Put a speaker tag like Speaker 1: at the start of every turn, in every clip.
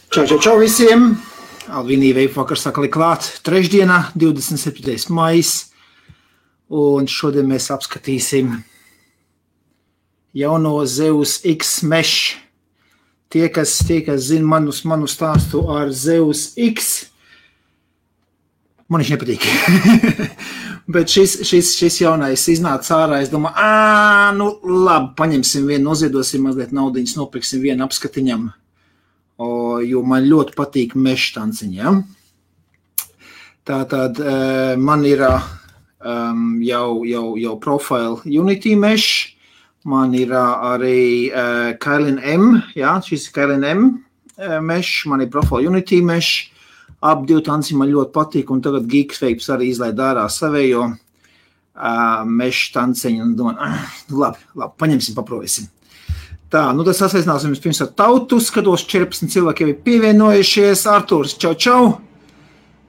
Speaker 1: Čau visiem! Alvinī Veipvakars sakali klāt. Trešdienā, 27. maijs. Un šodien mēs apskatīsim jauno Zeus X Mesh. Tie, kas zina manu stāstu ar Zeus X, man viņš nepatīk. Bet šis jaunais iznāca ārā, es domāju, labi, paņemsim vienu, noziedosim mazliet naudiņas, nopirksim vienu apskatiņam. Jo man ļoti patīk mesh tanciņi, ja? Tātad man ir jau profile Unity mesh, man ir arī Kailin M, ja? Šis ir Kailin M mesh, man ir profile Unity mesh, ap divi tanciņi man ļoti patīk, un tagad Geeksvapes arī izlaid ārā savējo mesh tanciņu, un domāju, labi, paņemsim, paprovēsim. Tā, tas sasveicināsim pirms ar tautu, skatos 14 cilvēki jau ir pievienojušies, Artūrs, čau.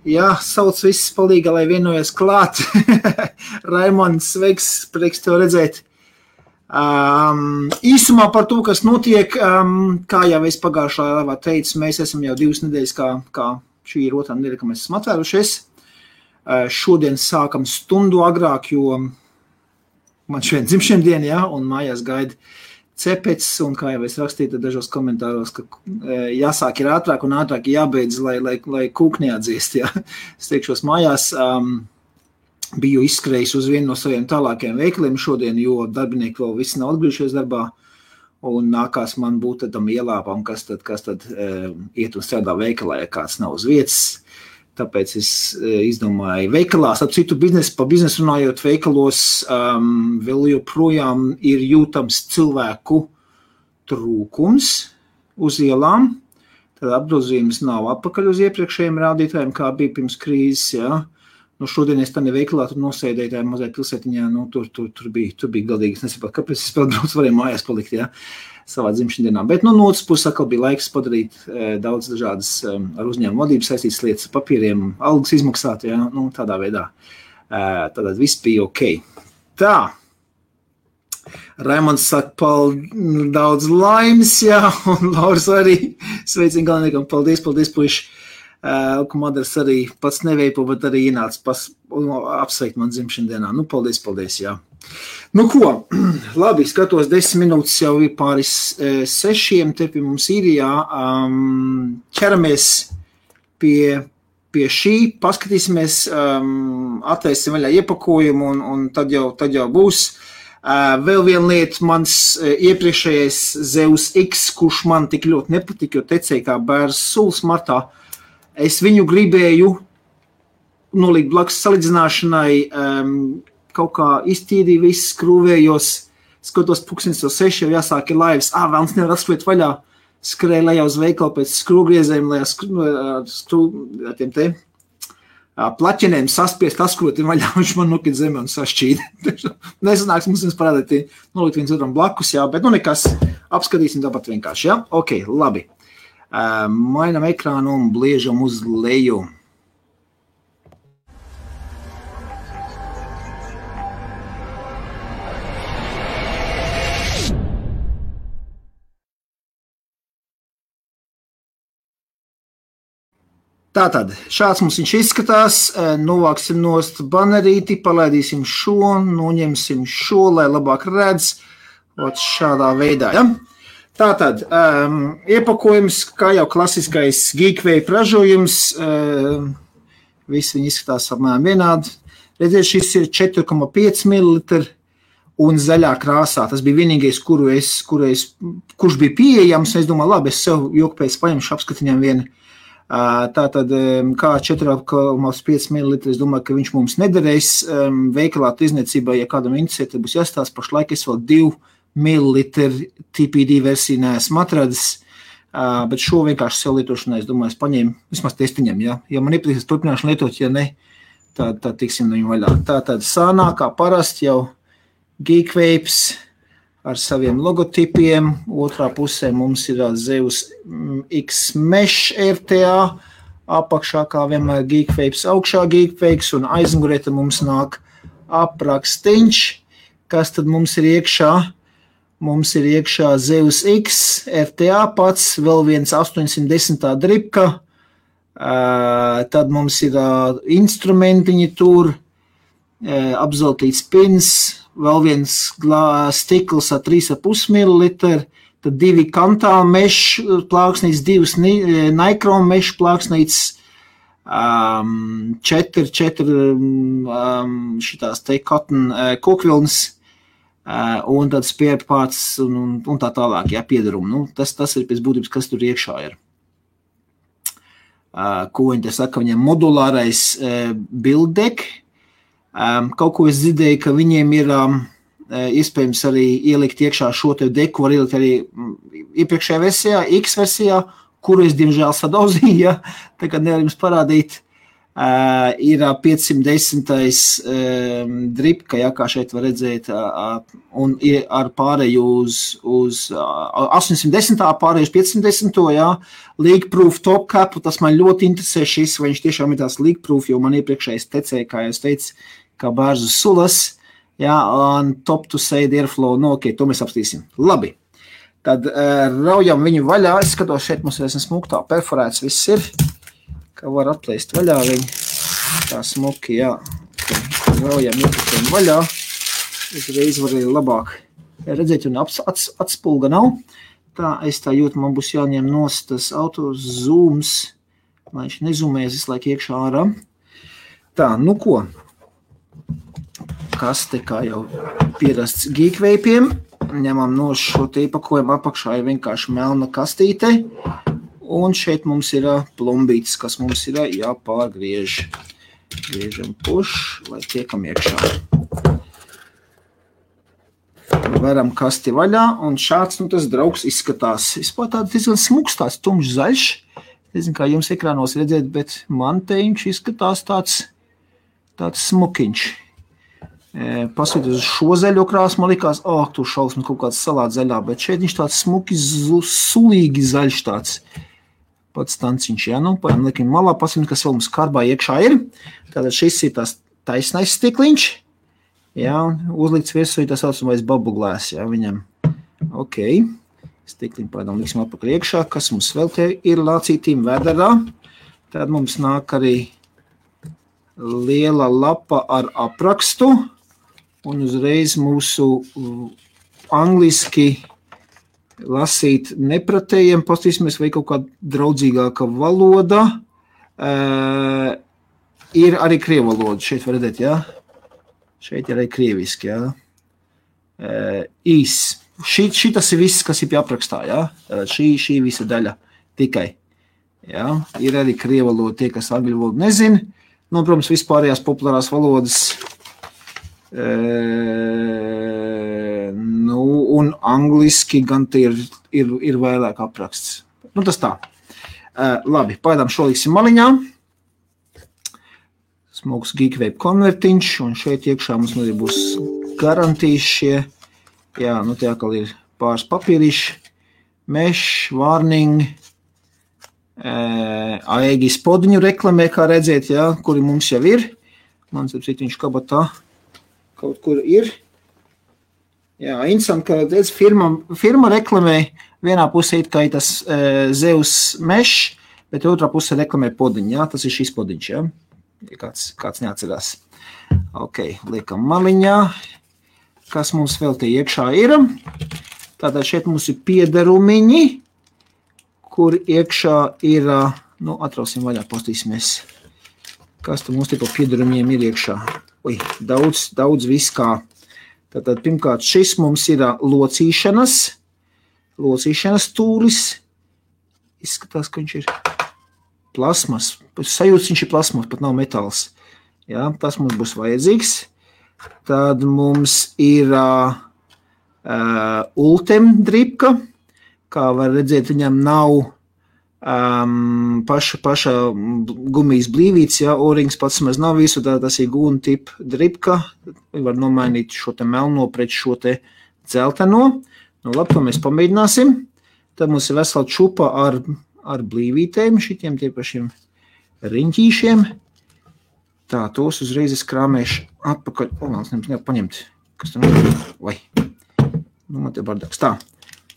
Speaker 1: Jā, sauc viss palīga, lai vienojas klāt. Raimonds, sveiks, prieks tev redzēt. Īsumā par to, kas notiek, kā jau es pagājušā laivā teicu, mēs esam jau 2 nedēļas, kā šī ir otrā nedēļa, ka mēs esam atvērušies. Šodien sākam stundu agrāk, jo man šodien dzimšanas diena, ja, un mājās gaida cepecis, un kā jau es rakstīju dažos komentāros, ka jāsāk ir ātrāk un ātrāk jābeidz, lai kūk neatdziest. Ja. Es teikšos mājās, biju izskrējis uz vienu no saviem tālākajiem veikaliem šodien, jo darbinieki vēl visi nav atgriežies darbā, un nākās man būt tam ielāpām, kas tad iet un strādā veikalā, ja kāds nav uz vietas. Tāpēc es izdomāju veikalās, ap citu par biznesu runājot veikalos, vēl joprojām ir jūtams cilvēku trūkums uz ielām. Tad apgrozījums nav atpakaļ uz iepriekšējiem rādītājiem, kā bija pirms krīzes. Ja. Šodien es tādā veikalā tur nosēdēju tajā mazajā pilsētiņā, tur bija galdīgi. Es nesaprotu, kāpēc es vēl braucu, varēju mājās palikt, ja, savā dzimšandienā. Bet no otras puses atkal bija laiks padarīt daudz dažādas ar uzņēmumu vadību saistītas lietas, papīriem, algas izmaksāt, ja, tādā veidā. Tātad viss bija ok. Tā. Raimonds saka, daudz laimes, jā, un Lauris arī sveicina galveniekam, paldies, puiši. Kumadars arī pats neveipo, bet arī ienāca apsveikt man dzimšandienā. Paldies, jā. Ko, labi, skatos 10 minūtes jau ir pāris 6, te pie mums Īrijā. Ķeramies pie šī, paskatīsimies, atvērsim vaļā iepakojumu un tad jau būs. Vēl viena lieta, mans iepriekšējais Zeus X, kurš man tik ļoti nepatika, jo tecēja kā bērns suls martā. Es viņu gribēju nolikt blakus salīdzināšanai, kaut kā iztīdīju viss, skrūvējos, skatos 6 jau jāsāk ir laivas, vēlams nevar atskriet vaļā, skrēju lejā uz veikalu pēc skrūvgriezēm, lai tiem te plaķenēm saspiest, askroti vaļā, viņš man nokit zemē un sašķīd. Nesanāks mums parādīt, nolikt viens otram blakus, jā, bet nekas, apskatīsim tāpat vienkārši, jā? Ok, labi. Mainam ekrānu un bliežam uz leju. Tātad, šāds mums viņš izskatās, novāksim nost banerīti, palaidīsim šo, noņemsim šo, lai labāk redz, šādā veidā, ja? Tātad, iepakojums, kā jau klasiskais Geekvape ražojums, visi viņi izskatās apmēram vienādi. Redziet, šis ir 4,5 ml un zaļā krāsā. Tas bija vienīgais, kurš bija pieejams. Es domāju, labi, es sev jokpēc paņemšu apskatiņām vienu. Tātad, kā 4,5 ml, es domāju, ka viņš mums nederēs. Veikalā tirdzniecībā, ja kādam interesē, tad būs jāstāsta pašlaik, es vēl 2 millilitru TPD versiju neesmu atradis, bet šo vienkārši sev lietošanai, es domāju, es paņēmu vismaz testiņam, ja? Ja man iepatīsies, turpināšu lietot, ja ne, tad tiksim no viņu vaļā. Tātad sānā, kā parasti jau Geekvapes ar saviem logotipiem, otrā pusē mums ir Zeus X Mesh RTA, apakšā kā vienmēr Geekvapes, augšā Geekvapes un aizmugurē mums nāk aprakstīņš, kas tad mums ir iekšā. Mums ir iekšā Zeus X, RTA pats, vēl viens 810. dripka, tad mums ir instrumentiņi tur, apzeltīts pins, vēl viens stikls ar 3,5 ml, tad 2 kantāla mešu plāksnītes, 2 Nikron mešu plāksnītes, 4 šitās te cotton kokvilnas, un tad spierpāts un tā tālāk, jā, piedarumi. Nu, tas ir pēc būtības, kas tur iekšā ir. Ko viņi te saka, viņiem modulārais build deck. Kaut ko es dzirdēju, ka viņiem ir iespējams arī ielikt iekšā šo te deku, var ielikt arī iepriekšējā versijā, X versijā, kuru es diemžēl sadauzīju, ja, tagad nevar jums parādīt. Ir 510. dripka, ja, kā šeit var redzēt, un ir ar pārēju uz 810. pārēju uz 510. Ja, leak-proof top capu, tas man ļoti interesē šis, vai viņš tiešām ir tās leak-proof, jo man iepriekšējais tecēja, kā jūs teicu, kā bērzu sulas, ja, un top to side airflow, nu, ok, to mēs apstīsim. Labi, tad raujam viņu vaļā, es skatos, šeit mums ir smuktā perforēts, viss ir, ka var atplēst vaļā viņu, tā smuki, jā, raujam iepušiem vaļā, uzreiz var arī labāk redzēt, un atspulga nav, tā es tā jūtu, man būs jāņem nost tas auto zooms, lai viņš nezumēs visu laiku iekšā ārā. Tā, nu ko, kaste kā jau pierasts geekveipiem, ņemam no šo te iepakojumu apakšā ir vienkārši melna kastīte, un šeit mums ir plombītis, kas mums ir jāpārgriež. Griežam puš, lai tiekam iekšā. Veram kasti vaļā, un šāds, nu, tas draugs izskatās. Vispār tāds diezgan smuks, tāds tumšs zaļš. Nezinu, kā jums ekrānos redzēt, bet man te viņš izskatās tāds smukiņš. Pasīt uz šo zaļo krāsu, man likās, tu šausmas kaut kāds salāt zaļā, bet šeit viņš tāds smuki, sulīgi zaļš tāds. Pats stanciņš, jā, nu, liekam malā, pasim, kas vēl mums karbā iekšā ir. Tātad šis ir tās taisnais stikliņš, jā, uzlikts virsū tā saucamais bubble glass, jā, viņam. Ok, stikliņu pēdām liksim atpakaļ iekšā, kas mums vēl te ir lācītīm vedarā. Tad mums nāk arī liela lapa ar aprakstu, un uzreiz mūsu angliski lasīt nepratējiem, pastīsimies, vai kaut kāda draudzīgāka valoda. Ir arī krievu valoda, šeit var redzēt, jā? Šeit ir arī krieviski, jā? Īs. Šitas ir viss, kas ir pie aprakstā, jā? Šī visa daļa tikai. Jā? Ir arī krievu valoda, tie, kas angļu valodu nezin. Nu, protams, vispārējās populārās valodas un angliski gan te ir vairāk apraksts. Nu, tas tā. Labi, pagaidām šo liksim maliņā. Smuks geekvape konvertiņš, un šeit iekšā mums arī būs garantijas šie. Jā, nu te atkal ir pāris papīriši. Mesh, warning, AEG spodiņu reklamē, kā redzēt, jā, kuri mums jau ir. Man sapsīt, viņš kabatā kaut kur ir. Jā, interesanti, ka redz, firma reklamē vienā pusē it kā ir tas Zeus Mesh, bet otrā pusē reklamē podiņu, jā, tas ir šis podiņš, jā, kāds neatcerās. Ok, liekam maliņā, kas mums vēl te iekšā ir. Tātad šeit mums ir piederumiņi, kur iekšā ir, nu, atrausim vaļā, postīsimies, kas tu mums te pa piederumiem ir iekšā. Daudz viss kā. Tātad, pirmkārt, šis mums ir locīšanas tūlis. Izskatās, ka viņš ir plasmas. Sajūts viņš ir plasmas, pat nav metāls. Jā, tas mums būs vajadzīgs. Tad mums ir Ultem dripka. Kā var redzēt, viņam nav paša gumijas blīvīts, ja, O-rings pats maz nav visu, tas ir gūna tipa dripka, var nomainīt šo te melno pret šo te dzelteno, nu labi, to mēs pamēģināsim, tad mums ir vesela čupa ar blīvītēm, šitiem tie pašiem riņķīšiem, tā, tos uzreiz es krāmēšu atpakaļ, nevar paņemt, kas tam ir, vai, Nu, man te bardaks. Tā,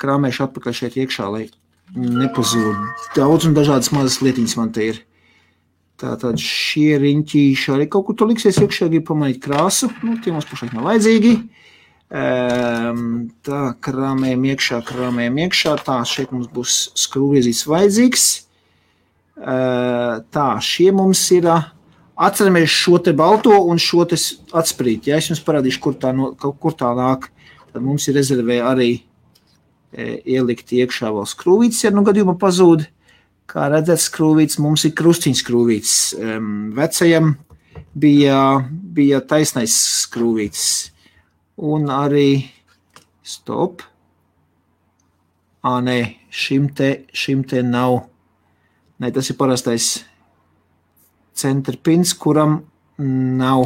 Speaker 1: krāmēšu atpakaļ šeit iekšā, lai nepazūd. Daudz un dažādas mazas lietiņas man te ir. Tātad šie riņķīši arī kaut kur tu liksies iekšā, grib pamanīt krāsu. Nu, tie mums pašlaik nav vajadzīgi. Tā, krāmējam iekšā. Tā, šeit mums būs skrūviezīts vajadzīgs. Tā, šie mums ir, atceramies šo te balto un šo te atsprīt. Ja, es jums parādīšu, kur tā nāk. Tad mums ir rezervē arī ielikt iekšā vēl skrūvītes, ja nu gadījumā pazūd. Kā redzēt, skrūvītes mums ir krustiņš skrūvītes. Vecajam bija taisnais skrūvītes. Un arī, stop. Nē, šim te nav. Nē, tas ir parastais centrpins, kuram nav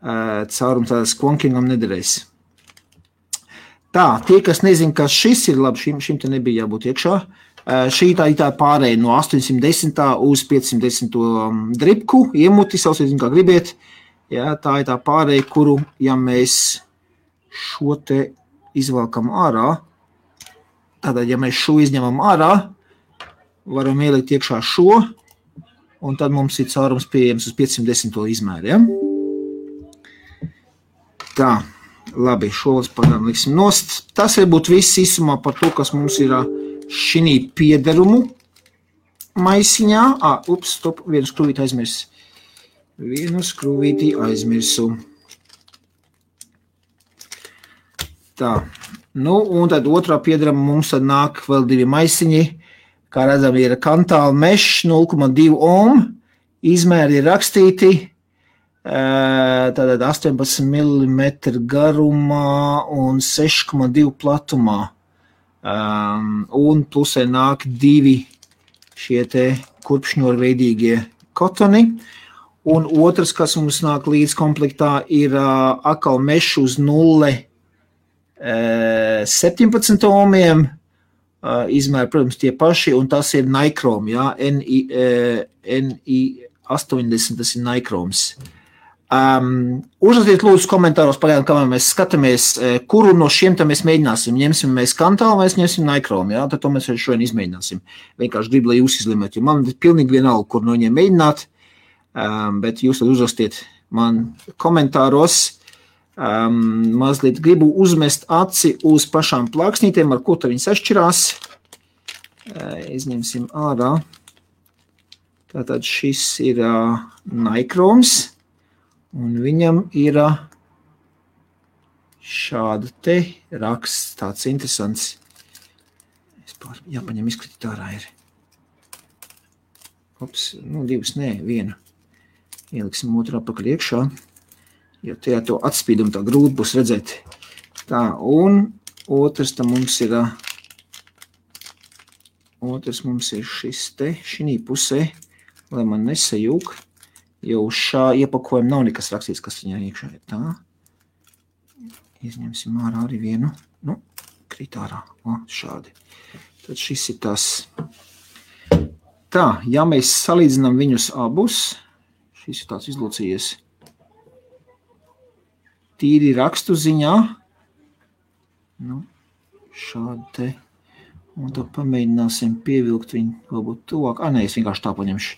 Speaker 1: caurums, tādas klonkingam nederēs. Tā, tie, kas nezin, kas šis ir, labi, šim te nebija jābūt iekšā. Šī tā pārēja no 810. uz 510. dripku, iemuti, sausiet, kā gribiet. Jā, tā ir tā pārēja, kuru, ja mēs šo te izvelkam ārā, tātad, ja mēs šo izņemam ārā, varam ielikt iekšā šo, un tad mums ir caurums pieejams uz 510. izmēru, ja? Tā, labi, šo pagaidām liksim nost. Tas varbūt viss īsumā par to, kas mums ir šinī piederumu maisiņā. Stop, vienu skrūvīti aizmirs. Tā, nu, un tad otrā piederuma mums tad nāk vēl 2 maisiņi. Kā redzam, ir kantāla mešs 0,2 ohm, izmēri ir rakstīti, tātad 18 mm garumā un 6,2 platumā. Un plusē nāk 2 šie te kurpšņorveidīgie kotoni. Un otrs, kas mums nāk līdz komplektā, ir akal mešs uz 0,17 ohmiem. Izmēri, protams, tie paši, un tas ir Nikrom, jā, NI80, tas ir Nikroms. Uzrakstiet lūdzu komentāros pagaidām, kamēr mēs skatāmies, kuru no šiem te mēs mēģināsim. Ņemsim mēs kantālu vai ņemsim Nikrom, jā, tad to mēs šodien izmēģināsim. Vienkārši gribu, lai jūs izlemēt, jo man ir pilnīgi vienalga, kur no viņiem mēģināt, bet jūs tad uzrakstiet man komentāros. Mazliet gribu uzmest aci uz pašām plāksnītēm, ar ko tad viņas atšķirās. Izņemsim ārā. Tātad šis ir Nikroms, un viņam ir šāda te raksts, tāds interesants. Jāpaņem izkritīt ārā ir. Ops, nu 2, nē, 1. Ieliksim otru apakaļ iekšā. Jo tajā to atspīdumu tā grūti būs redzēt. Tā, un otrs mums ir šis te, šinī pusē, lai man nesajūk, jo uz šā iepakojuma nav nekas rakstīts, kas viņā iekšā ir. Tā, izņemsim ārā arī vienu, nu, krīt ārā, šādi. Tad šis ir tas. Tā, ja mēs salīdzinām viņus abus, šis ir tāds izlocījies. Tīri rakstu ziņā, nu, šādi te, un tad pamēģināsim pievilkt viņu, varbūt tuvāk, nē, es vienkārši tā paņemšu.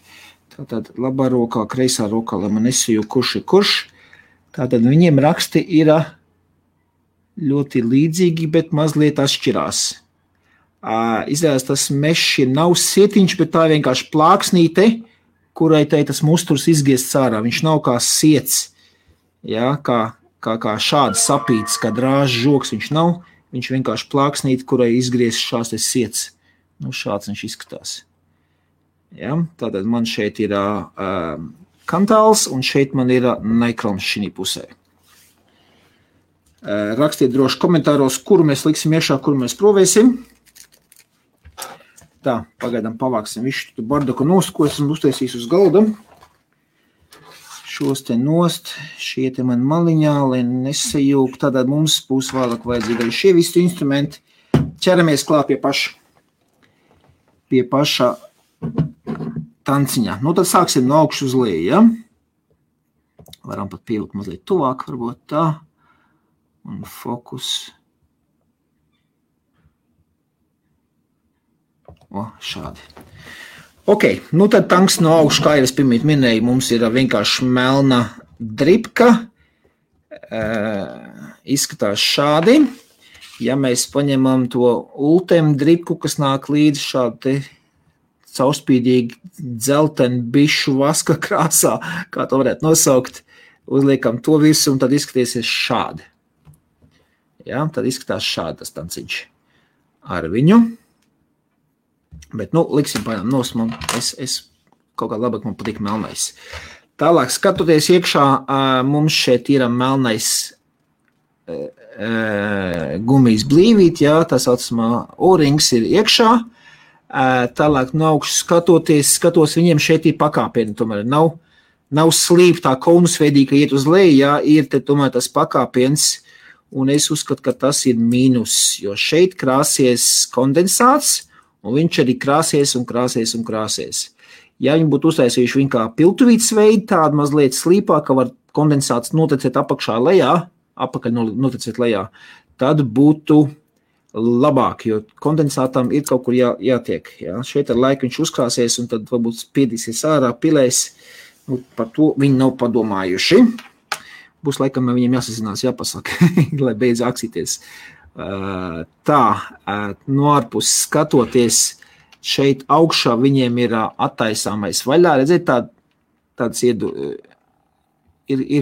Speaker 1: Tātad labā rokā, kreisā rokā, lai man nesajūk, kurš ir kurš. Tātad viņiem raksti ir ļoti līdzīgi, bet mazliet atšķirās. Izrādās tas mešs nav sietiņš, bet tā vienkārši plāksnīte, kurai tai tas musturs izgiests ārā. Viņš nav kā siets, jā, kā šāds sapīts, kā drāžs žoks viņš nav, viņš vienkārši plāksnīt, kurai izgriez šās te siets. Nu, šāds viņš izskatās. Ja? Tātad man šeit ir kantāls, un šeit man ir Nikroms šinī pusē. Rakstiet droši komentāros, kuru mēs liksim iekšā, kuru mēs provēsim. Tā, pagaidām pavāksim visu tu bardaku nost, ko esmu uztaisījis uz galda. Šos te nost, šie te man maliņā, lai nesajūk, tātad mums būs vēlāk vajadzīgi arī šie visi instrumenti. Ķeramies klāt pie paša tanciņā. Nu, tad sāksim no augšu uz leju, ja? Varam pat pievilkt mazliet tuvāk, varbūt tā. Un fokus. Šādi. Ok, nu tad tanks no augšu, kā jau es pirmīt minēju, mums ir vienkārši melna dripka. Izskatās šādi. Ja mēs paņemam to ultem dripku, kas nāk līdz šādi caurspīdīgi dzelteni bišu vaska krāsā, kā to varētu nosaukt, uzliekam to visu un tad izskatīsies šādi. Ja, tad izskatās šādi tas tanciņš ar viņu. Bet, liksim paņem nos, es kaut kā labāk man patīk melnais. Tālāk, skatoties iekšā, mums šeit ir melnais gumijas blīvīt, jā, tā saucamā O-rings ir iekšā. Tālāk no augšas skatos, viņiem šeit ir pakāpieni, tomēr nav slīptā konusveidīga iet uz leju, jā, ir te tomēr tas pakāpiens, un es uzskatu, ka tas ir mīnus, jo šeit krāsies kondensāts, un viņš arī krāsies un krāsies un krāsies. Ja viņi būtu uztaisījuši viņu kā piltuvītes veidu, tādu mazliet slīpā, ka var kondensāts notecēt apakšā lejā, apakaļ notecēt lejā, tad būtu labāk, jo kondensātam ir kaut kur jātiek. Jā. Šeit ar laiku viņš uzkrāsies un tad varbūt spiedīsies ārā, pilēs. Par to viņi nav padomājuši. Būs laikam viņiem jāsazinās, jāpasaka, lai beidz aksīties. Tā, no ārpus skatoties, šeit augšā viņiem ir attaisāmais vaļā. Redziet, tāds ir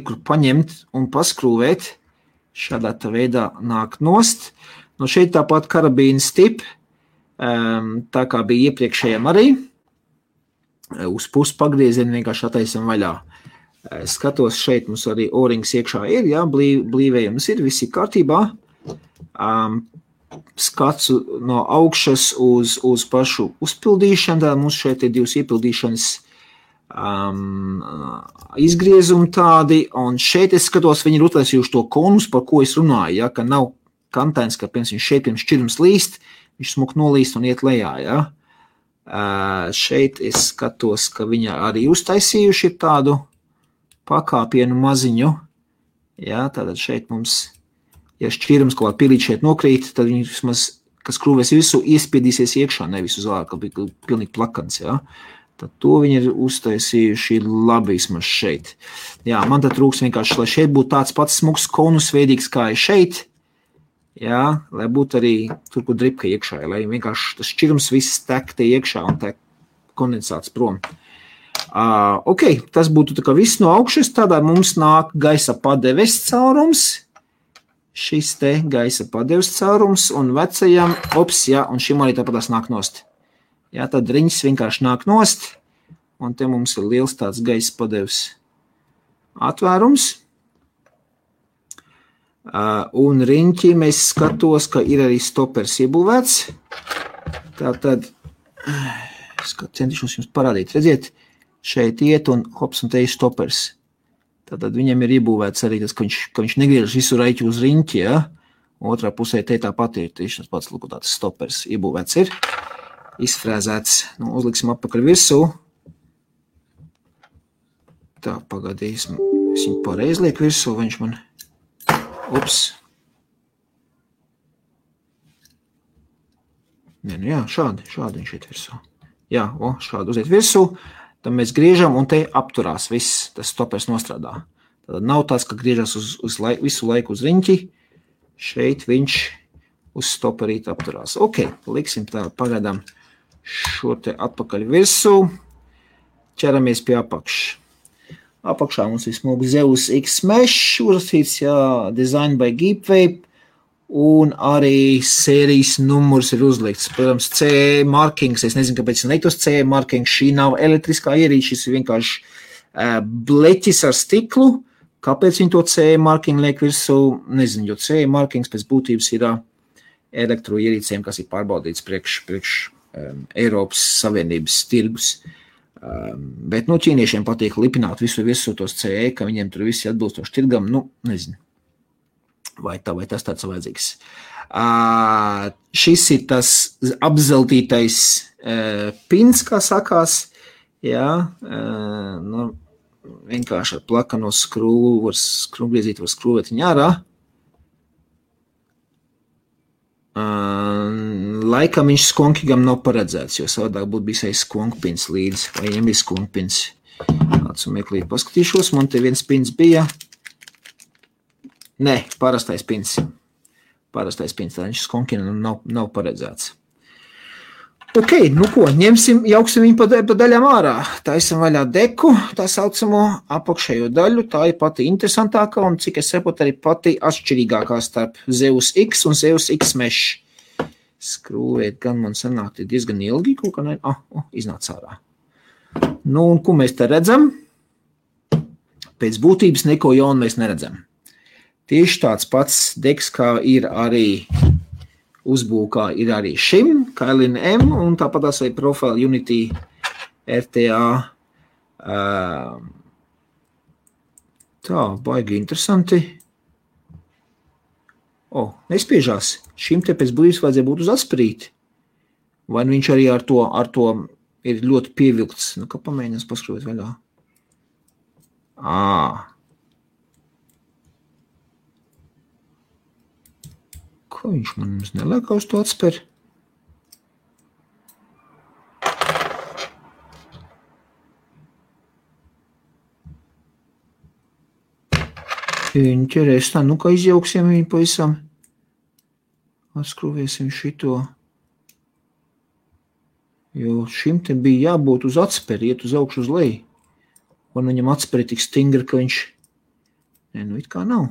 Speaker 1: kur paņemt un paskrūvēt. Šādā veidā nāk nost. No šeit tāpat karabīna stip, tā kā bija iepriekšējiem arī. Uz pusi pagriezienu vienkārši attaisam vaļā. Skatos, šeit mums arī O-rings iekšā ir, jā, blīvējums ir, viss ir kārtībā. Skats no augšas uz pašu uzpildīšanu, tā mums šeit ir divas iepildīšanas izgriezumi tādi, un šeit es skatos, viņi ir uztaisījuši to konus, par ko es runāju, ja, ka nav kantains, ka šeit pirms šķirums līst, viņš smuk nolīst un iet lejā, ja. Šeit es skatos, ka viņi arī uztaisījuši tādu pakāpienu maziņu, ja, tātad šeit mums, ja šķirums kaut kā pilīt šeit nokrīt, tad viņi vismaz, kas krūvēs visu, iespiedīsies iekšā, nevis uz ārā, ka bija pilnīgi plakans, ja. Tad to viņi ir uztaisījuši labi vismaz šeit. Jā, man tad trūks vienkārši, lai šeit būtu tāds pats smuks konusveidīgs, kā ir šeit, jā, lai būtu arī tur, kur dripka iekšā, lai vienkārši tas šķirums viss tek te iekšā un tek kondensāts prom. Ok, tas būtu tā kā viss no augšas, tādā mums nāk gaisa padeves caurums, šis te gaisa padeves caurums un vecajam, jā, un šim arī tāpatās nāk nost. Jā, tad riņķis vienkārši nāk nost, un te mums ir liels tāds gaisa padeves atvērums. Un riņķī mēs skatos, ka ir arī stopers iebūvēts. Tātad, centīšos jums parādīt, redziet, šeit iet un hops un te ir stopers. Tātad viņam ir iebūvēts arī tas, ka viņš negriežas visu raiķu uz riņķi, ja? Otrā pusē te tāpat ir tieši tas pats, lūk, tāds stopers iebūvēts ir. Izfrēzēts. Uzliksim atpakaļ virsū. Tā, pagadīsim. Es viņu pareizi lieku virsū, viņš man... Jā, šādi viņš iet virsū. Jā, šādi uziet virsū. Tad mēs griežam un te apturās viss, tas stopers nostrādā. Tad nav tāds, ka griežas visu laiku uz riņķi. Šeit viņš uz stoperīt apturās. Ok, liksim tā, pagaidām šo te atpakaļ virsū, ķeramies pie apakšas. Apakšā mums ir smugi Zeus X-Mesh, uzrakstīts, jā, Design by Geepwave, un arī sērijas numurs ir uzlikts. Protams, CE markings, es nezinu, kāpēc ir neiktos CE markings, šī nav elektriskā ierīce, šis ir vienkārši bleķis ar stiklu. Kāpēc viņi to CE marking liek virsū? Nezinu, jo CE markings pēc būtības ir elektroierīcēm, kas ir pārbaudīts priekš Eiropas Savienības tirgus. Bet, ķīniešiem patīk lipināt visu tos CE, ka viņiem tur visi atbilstoši tirgam, nezinu, vai tas tāds vajadzīgs. Šis ir tas apzeltītais pins, kā sakās, jā, vienkārši ar plakano skrūvu, skrūvgriezīt var skrūvēt viņu ārā. laikam viņš skonkigam nav paredzēts, jo savādāk būtu bijis aiz skonkpins līdz, vai viņam bija skonkpins. Tāds un meklīt paskatīšos, man te viens pins bija. Nē, parastais pins. Parastais pins, tā viņš skonkigam nav paredzēts. Ok, nu ko, jauksim viņu pa daļām ārā. Taisam vaļā deku, tā saucamo apakšējo daļu. Tā ir pati interesantākā un, cik es saprotu, arī pati atšķirīgākā starp Zeus X un Zeus X Mesh. Skrūvēt gan man sanāk diezgan ilgi, kaut kā iznāc ārā. Nu, un ko mēs te redzam? Pēc būtības neko jaunu mēs neredzam. Tieši tāds pats deks, kā ir arī uzbūkā ir arī šim, Kailin M, un tāpat tās arī Profile Unity RTA. Tā, baigi interesanti. Nespiežās. Šim te pēc būtības vajadzēja būt uz atspirīti. Vai viņš arī ar to ir ļoti pievilkts. Nu, kā pamēģinās paskrūvēt vaļā. Ko viņš man neliek uz to atspēr? Interesanti, nu kā izjauksim viņu pavisam. Atskrūvēsim šito. Jo šim te bija jābūt uz atspēri, iet uz augšu uz leju. Un viņam atspēri tik stingri, ka viņš... Nē, nu it kā nav.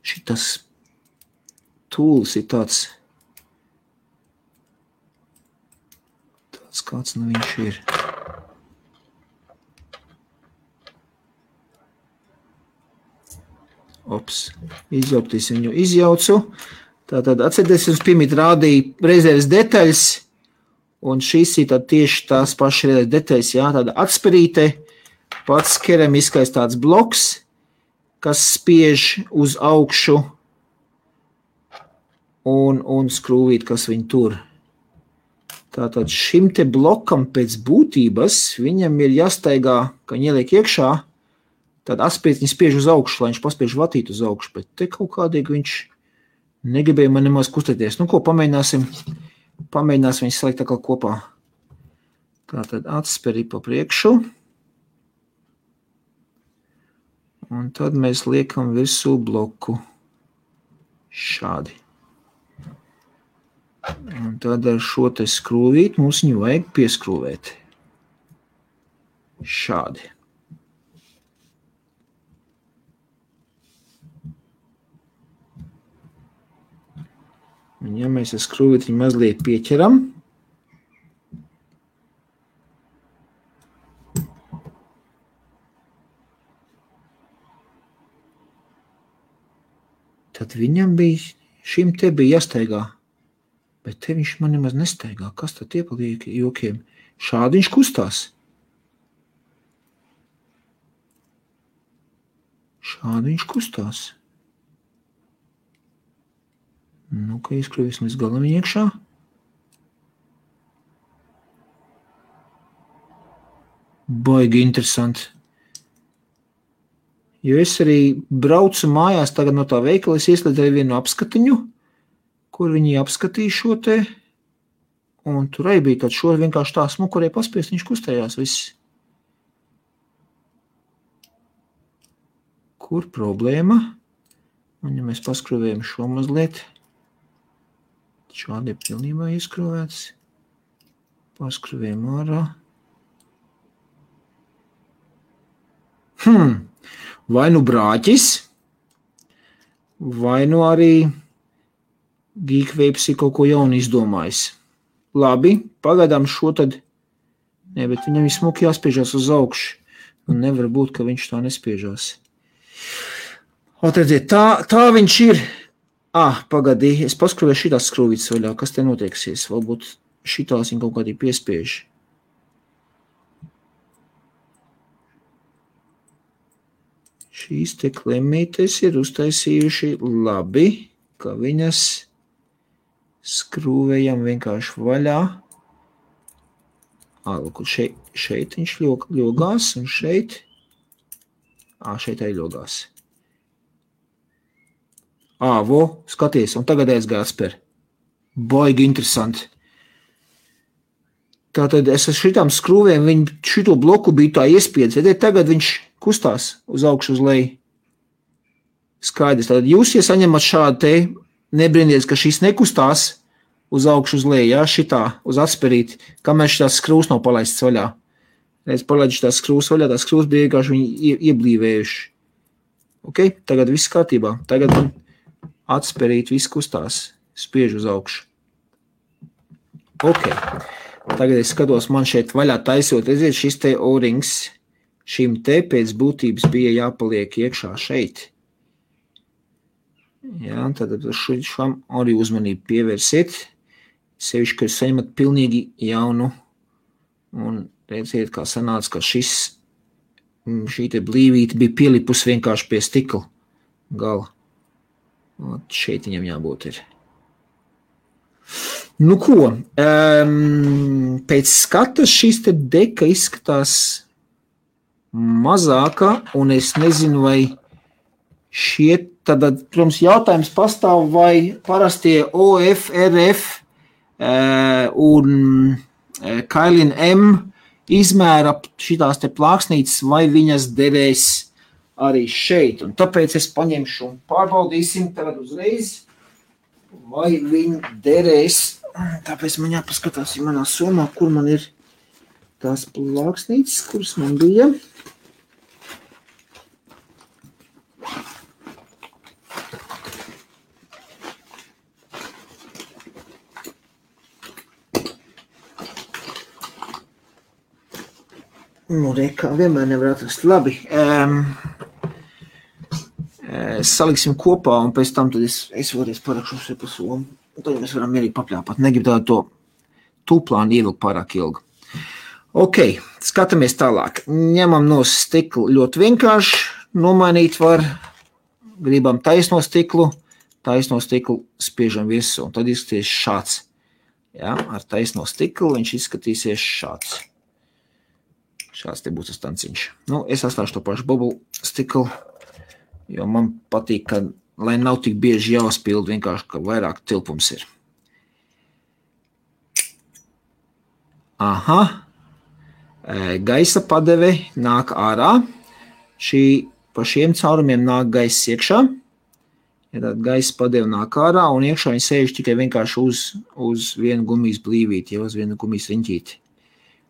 Speaker 1: Šitas tūlis ir tāds kāds nu viņš ir. Izjaukties viņu izjaucu. Tātad atcerieties, jums pirmīt rādīja rezerves detaļas, un šīs ir tieši tās pašas rezerves detaļas, jā, tāda atspērīte, pats keramiskais tāds bloks, kas spiež uz augšu, un skrūvīt, kas viņu tur. Tātad šim te blokam pēc būtības viņam ir jāstaigā, ka viņi ieliek iekšā, tad atspēt viņi spiež uz augšu, lai viņš paspiež vatīt uz augšu, bet te kaut kādīgi viņš negribēja man nemaz kustēties. Nu ko, pamēģināsim viņus salikt tā kā kopā. Tātad atsperi pa priekšu. Un tad mēs liekam virsū bloku šādi. Un tad ar šo te skrūvīt mums viņu vajag pieskrūvēt. Šādi. Un ja mēs ar skrūvīt viņu mazliet pieķeram, tad viņam šim te bija jāstaigā. Bet te viņš man nemaz nestaigā. Kas tad iepaliek jokiem? Šādi viņš kustās. Šādi viņš kustās. Nu, ka ieskrūvēsim līdz galam viņa iekšā. Baigi interesanti. Jo es arī braucu mājās tagad no tā veikala, es ieslēdzu vienu apskatiņu, kur viņi apskatīja šo te, un tur arī bija tāds šo vienkārši tā smukurē paspiest, viņš kustējās viss. Kur problēma? Un ja mēs paskrūvējam šo mazliet, šādi ir pilnībā ieskrūvēts, paskrūvējam ārā. Vai nu brāķis, vai nu arī Geekwapes ir kaut ko jaunu izdomājis. Labi, pagaidām šo tad, ne, bet viņam ir smuki jāspiežās uz augšu. Un nevar būt, ka viņš tā nespiežās. Atradziet, tā viņš ir. Pagadī, es paskrūvēju šitās skrūvītas vaļā, kas te notieksies. Varbūt šitās viņa kaut kādī piespiež. Šīs te klemītes ir uztaisījuši labi, ka viņas skrūvējam vienkārši vaļā. Lūk, šeit viņš ļogās, un šeit arī ļogās. Skaties, un tagad aizgāja atspēr. Baigi interesanti. Tātad es ar šitām skrūvēm šito bloku biju tā iespiedis. Tagad viņš kustās uz augšu uz leju. Skaidrs. Tātad jūs, ja saņemat šādu te, nebrīnties, ka šis nekustās uz augšu uz leju, ja, šitā, uz atsperīt, kamēr šitās skrūs nav palaists vaļā. Es palaidu šitās skrūs vaļā, tās skrūs bija vienkārši viņi ieblīvējuši. Ok, tagad viss kārtībā. Tagad man atsperīt, viss kustās, spiež uz augšu. Ok. Tagad es skatos, man šeit vaļā taisot, redziet, šis te O-rings, šim te pēc būtības bija jāpaliek iekšā šeit. Jā, tad šam arī uzmanību pievērsiet, sevišķi, ka jūs saņemat pilnīgi jaunu, un redziet, kā sanāca, ka šī te blīvīte bija pielipus vienkārši pie stikla gala. Un šeit viņam jābūt ir. Nu ko, pēc skatas šīs te deka izskatās mazāka, un es nezinu, vai šie, tad, protams, jautājums pastāv, vai parastie OF, RF un Kailin M izmēra šitās te plāksnītes, vai viņas derēs arī šeit. Un tāpēc es paņemšu un pārbaudīsim tagad uzreiz, vai viņi derēs. Tāpēc man jāpaskatās manā somā, kur man ir tās plāksnītes, kuras man bija. Nu, kā vienmēr nevar atrast. Labi. Saliksim kopā, un pēc tam tad es vēlreiz parakšu šeit pa somu. Un tad mēs varam mierīgi papļāpāt. Negribu tādu to tūplānu ievilkt pārāk ilgu. Ok, skatāmies tālāk. Ņemam no stiklu ļoti vienkārši. Nomainīt var. Gribam taisno stiklu spiežam virsū. Un tad izskatīsies šāds. Jā, ar taisno stiklu viņš izskatīsies šāds. Šāds te būs tas tanciņš. Nu, es atstāšu to pašu bubble stiklu, jo man patīk, ka, lai nav tik bieži jāspilda, vienkārši, ka vairāk tilpums ir. Aha. Gaisa padeve nāk ārā. Pa šiem caurumiem nāk gaiss iekšā. Ja tad gaisa padeve nāk ārā, un iekšā viņi sēž tikai vienkārši uz vienu gumijas blīvīti, ja uz vienu gumijas riņķīti.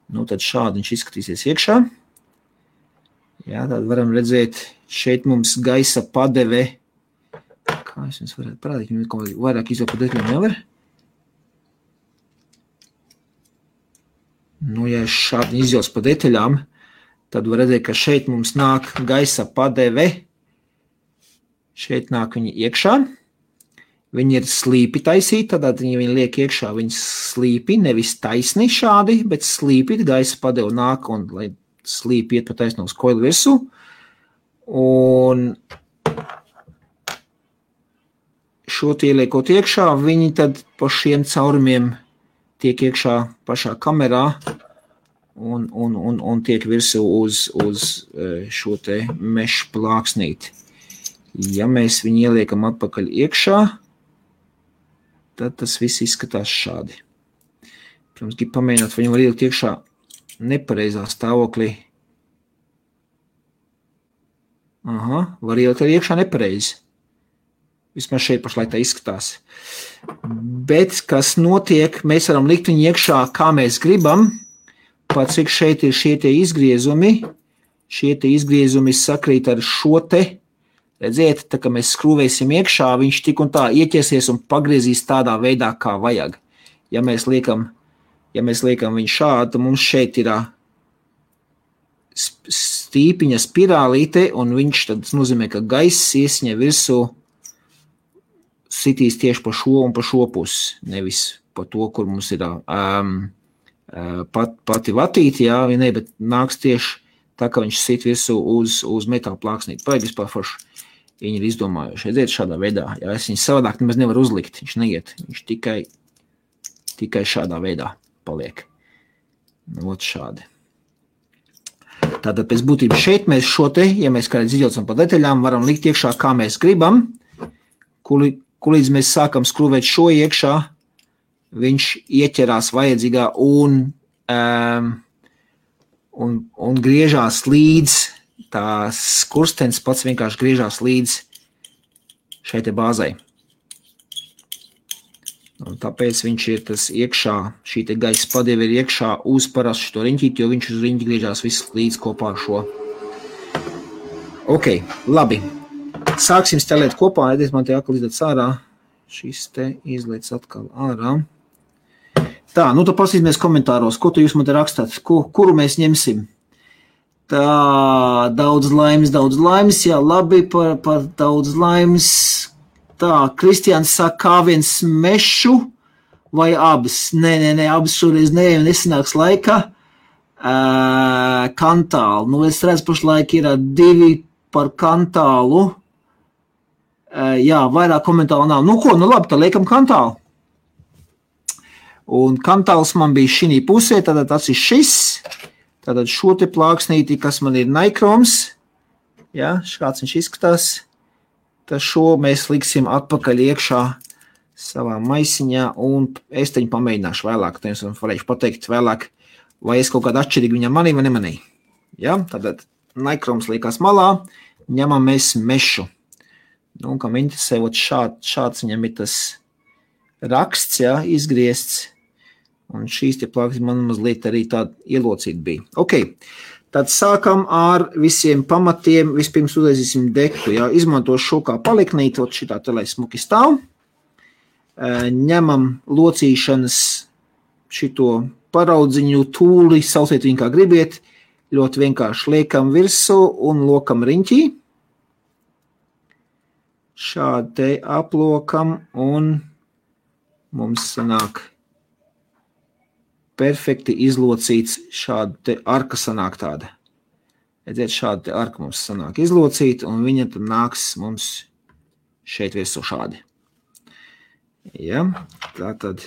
Speaker 1: Nu, tad šādi viņš izskatīsies iekšā. Jā, tad varam redzēt, šeit mums gaisa padeve. Kā es jums varētu parādīt, viņu kaut vairāk izvēl pa detaļām nevar. Nu, ja es šādi izvēls pa detaļām, tad var redzēt, ka šeit mums nāk gaisa padeve. Šeit nāk viņi iekšā. Viņi ir slīpi taisīti, tad viņi liek iekšā, viņi slīpi, nevis taisni šādi, bet slīpi, gaisa padeva nāk un lai slīpi iet pa taisno uz koilu virsū. Un šo ieliekot iekšā, viņi tad pa šiem caurumiem tiek iekšā pašā kamerā un tiek virsū uz šo te mešu plāksnīti. Ja mēs viņu ieliekam atpakaļ iekšā, tad tas viss izskatās šādi. Protams, grib pamēģināt, vai viņu var ielikt iekšā nepareizā stāvoklī. Aha, var ielikt arī iekšā nepareizi. Vismaz šeit pašlaik tā izskatās. Bet, kas notiek, mēs varam likt viņu iekšā, kā mēs gribam, pat cik šeit ir šie tie izgriezumi. Šie tie izgriezumi sakrīt ar šo te. Redziet, tā kā mēs skrūvēsim iekšā, viņš tik un tā ieķersies un pagriezīs tādā veidā, kā vajag. Ja mēs liekam viņu šādi, tad mums šeit ir stīpiņa spirālīte, un viņš tad nozīmē, ka gaiss iesņa virsū sitīs tieši pa šo un pa šo pusi, nevis pa to, kur mums ir pati vatīti, jā, ne, bet nāks tieši tā, ka viņš sit virsū uz metāla plāksnīti. Paigi vispār forši. Viņi ir izdomājuši. Redziet šādā veidā. Ja es viņu savādāk nemaz nevaru uzlikt. Viņš neiet. Viņš tikai šādā veidā paliek. Ot šādi. Tātad pēc būtības šeit mēs šo te, ja mēs kādreiz izjaucam pa detaļām, varam likt iekšā, kā mēs gribam. Kulīdz mēs sākam skrūvēt šo iekšā, viņš ieķerās vajadzīgā un un griežās līdz, tās kurstenis pats vienkārši griežās līdz šai te bāzai. Un tāpēc viņš ir tas iekšā, šī te gaisa padeve ir iekšā uz parastu šo riņķīti, jo viņš uz riņķi griežās viss līdz kopā ar šo. Ok, labi. Sāksim stelēt kopā, ediet man te atkal izlēc ārā. Šis te izlēc atkal ārā. Tā, nu tad pasīsimies komentāros, ko tu jūs man te rakstāt, kuru mēs ņemsim. Tā, daudz laimes, jā, labi, par daudz laimes. Tā, Kristiāns saka, kā viens mešu vai abas? Nē, abas šoreiz nesanāks laika. Kantālu, nu es redzu pašlaik ir 2 par kantālu. Jā, vairāk komentāru nav. Nu ko, nu labi, tad liekam kantālu. Un kantāls man bija šī pusē, tātad tas ir šis, tātad šo te plāksnīti, kas man ir Nikroms, ja, kāds viņš izskatās, tad šo mēs liksim atpakaļ iekšā savā maisiņā, un es teņu pamēģināšu vēlāk, tad jums varēšu pateikt vēlāk, vai es kaut kādu atšķirīgu viņam manī vai nemanī. Ja, tātad Nikroms liekas malā, ņemam mēs mešu. Nu, kam interesē, šāds viņam ir tas raksts, ja, izgriezts. Un šīs te plāksnes man mazliet arī tāda ielocīta bija. Ok, tad sākam ar visiem pamatiem. Vispirms uztaisīsim dektu. Jā, izmantošu šo kā paliknīt, šitā te lai smuki stāv. Ņemam locīšanas šito paraudziņu tūli, sauciet viņu kā gribiet. Ļoti vienkārši liekam virsū un lokam riņķī. Šādi te aplokam un mums sanāk perfekti izlocīts šāda te arka sanāk tāda. Redziet, šāda te arka mums sanāk izlocīta, un viņa tad nāks mums šeit virsū šādi. Ja, tātad,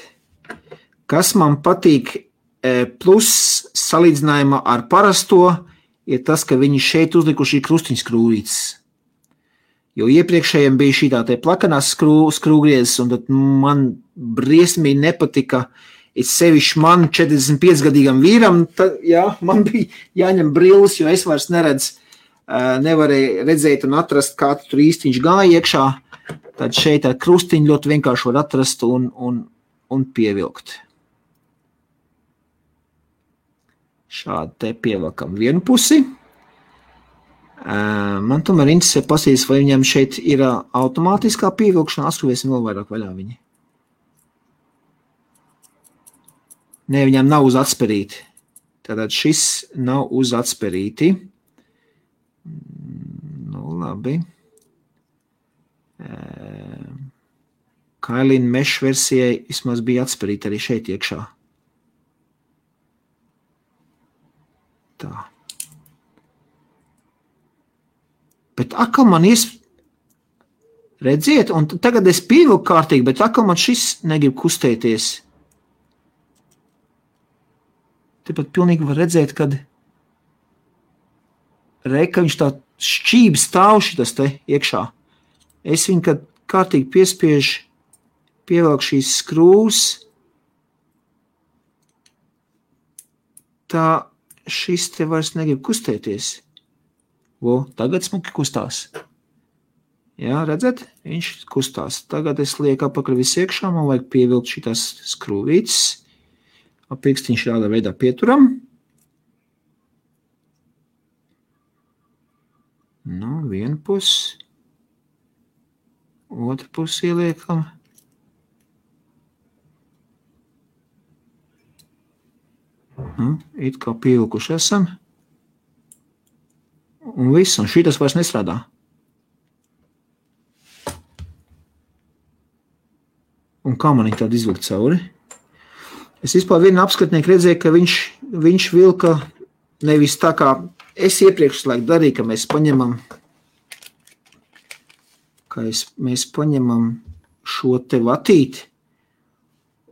Speaker 1: kas man patīk plus salīdzinājumā ar parasto, ir tas, ka viņi šeit uzlikuši krustiņskrūvītes. Jo iepriekšējiem bija šī tā te plakanās skrūgriezes, un tad man briesmīgi nepatika. Ir sevišķi man 45-gadīgam vīram, tad, jā, man bija jāņem brilles, jo es vairs nevarēju redzēt un atrast, kā tur īsti viņš gāja iekšā. Tad šeit ar krustiņu ļoti vienkārši var atrast un pievilkt. Šādi te pievilkam vienu pusi. Man tomēr interesē pasīties, vai viņam šeit ir automātiskā pievilkšana, atskruvēsim vēl vairāk vaļā viņi. Nē, viņam nav uz atsperīti. Tātad šis nav uz atsperīti. Nu, labi. Kailina mesh versijai vismaz bija atsperīti arī šeit iekšā. Tā. Bet atkal man redziet, un tagad es pievilku kārtīgi, bet atkal man šis negrib kustēties. Tepat pilnīgi var redzēt, kad reka viņš tā šķība stāv šitas te iekšā. Es viņu, kad kārtīgi piespiežu, pievelku šīs skrūvas, tā šis te vairs negrib kustēties. Tagad smuki kustās. Jā, redzat? Viņš kustās. Tagad es lieku apakaļ visu iekšā, man vajag pievilkt šitās skrūvītes. Pirkstiņš šādā veidā pieturam. Nu, vienu pusi. Otru pusi ieliekam. It kā pievilkuši esam. Un viss, un šitas vairs nestrādā. Un kā man viņi tādu izvilkt cauri? Es vispār vienu apskatnieku redzēju, ka viņš vilka nevis tā kā es iepriekš laiku darīju, ka mēs paņemam šo te vatīti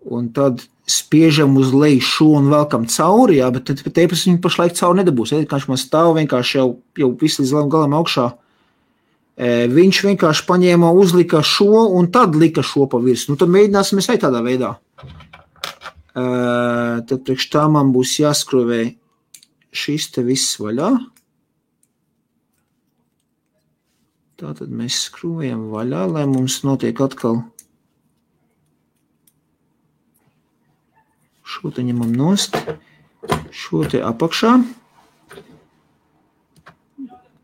Speaker 1: un tad spiežam uz leju šo un velkam cauri, jā, bet teipas viņu pašlaik cauri nedabūs. Kā viņš man stāv vienkārši jau visu līdz galam augšā. Viņš vienkārši paņēma, uzlika šo un tad lika šo pa virs. Nu, tad mēģināsim mēs arī tādā veidā. Tad priekš tā man būs jāskruvē šis te viss vaļā. Tātad mēs skrūvējam vaļā, lai mums notiek atkal. Šo te ņemam nost, šo te apakšā.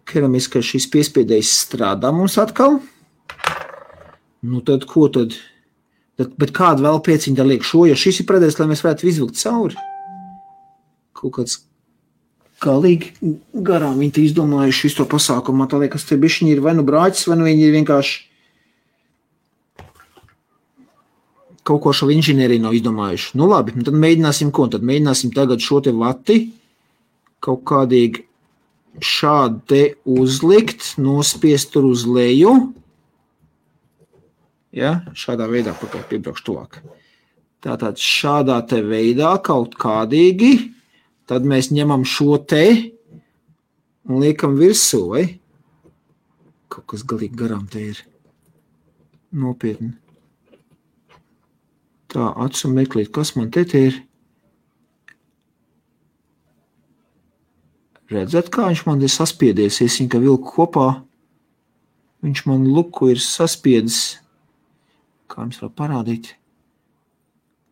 Speaker 1: Keramiskais šis piespiedējs strādā mums atkal. Nu tad ko tad? Bet kādu vēl pieciņu tā liek šo, jo šis ir predēs, lai mēs varētu izvilkt cauri. Kaut kāds galīgi garām viņi te izdomājuši visu to pasākumu. Tā liekas, te bišķiņi ir vai nu brāķis, vai nu viņi ir vienkārši kaut ko šo inženieriju nav izdomājuši. Nu labi, tad mēģināsim ko? Tad mēģināsim tagad šo te vati kaut kādīgi šādi te uzlikt, nospiest tur uz leju. Ja, šādā veidā pakaļ piebraukšu tuvāk. Tātad šādā te veidā kaut kādīgi, tad mēs ņemam šo te un liekam virsū, vai? Kaut kas galīgi garām te ir. Nopietni. Tā, acu meklīt, kas man te ir? Redzat, kā viņš man ir saspiedies, es viņu, ka vilku kopā, viņš man luku ir saspiedis. Kā jums var parādīt?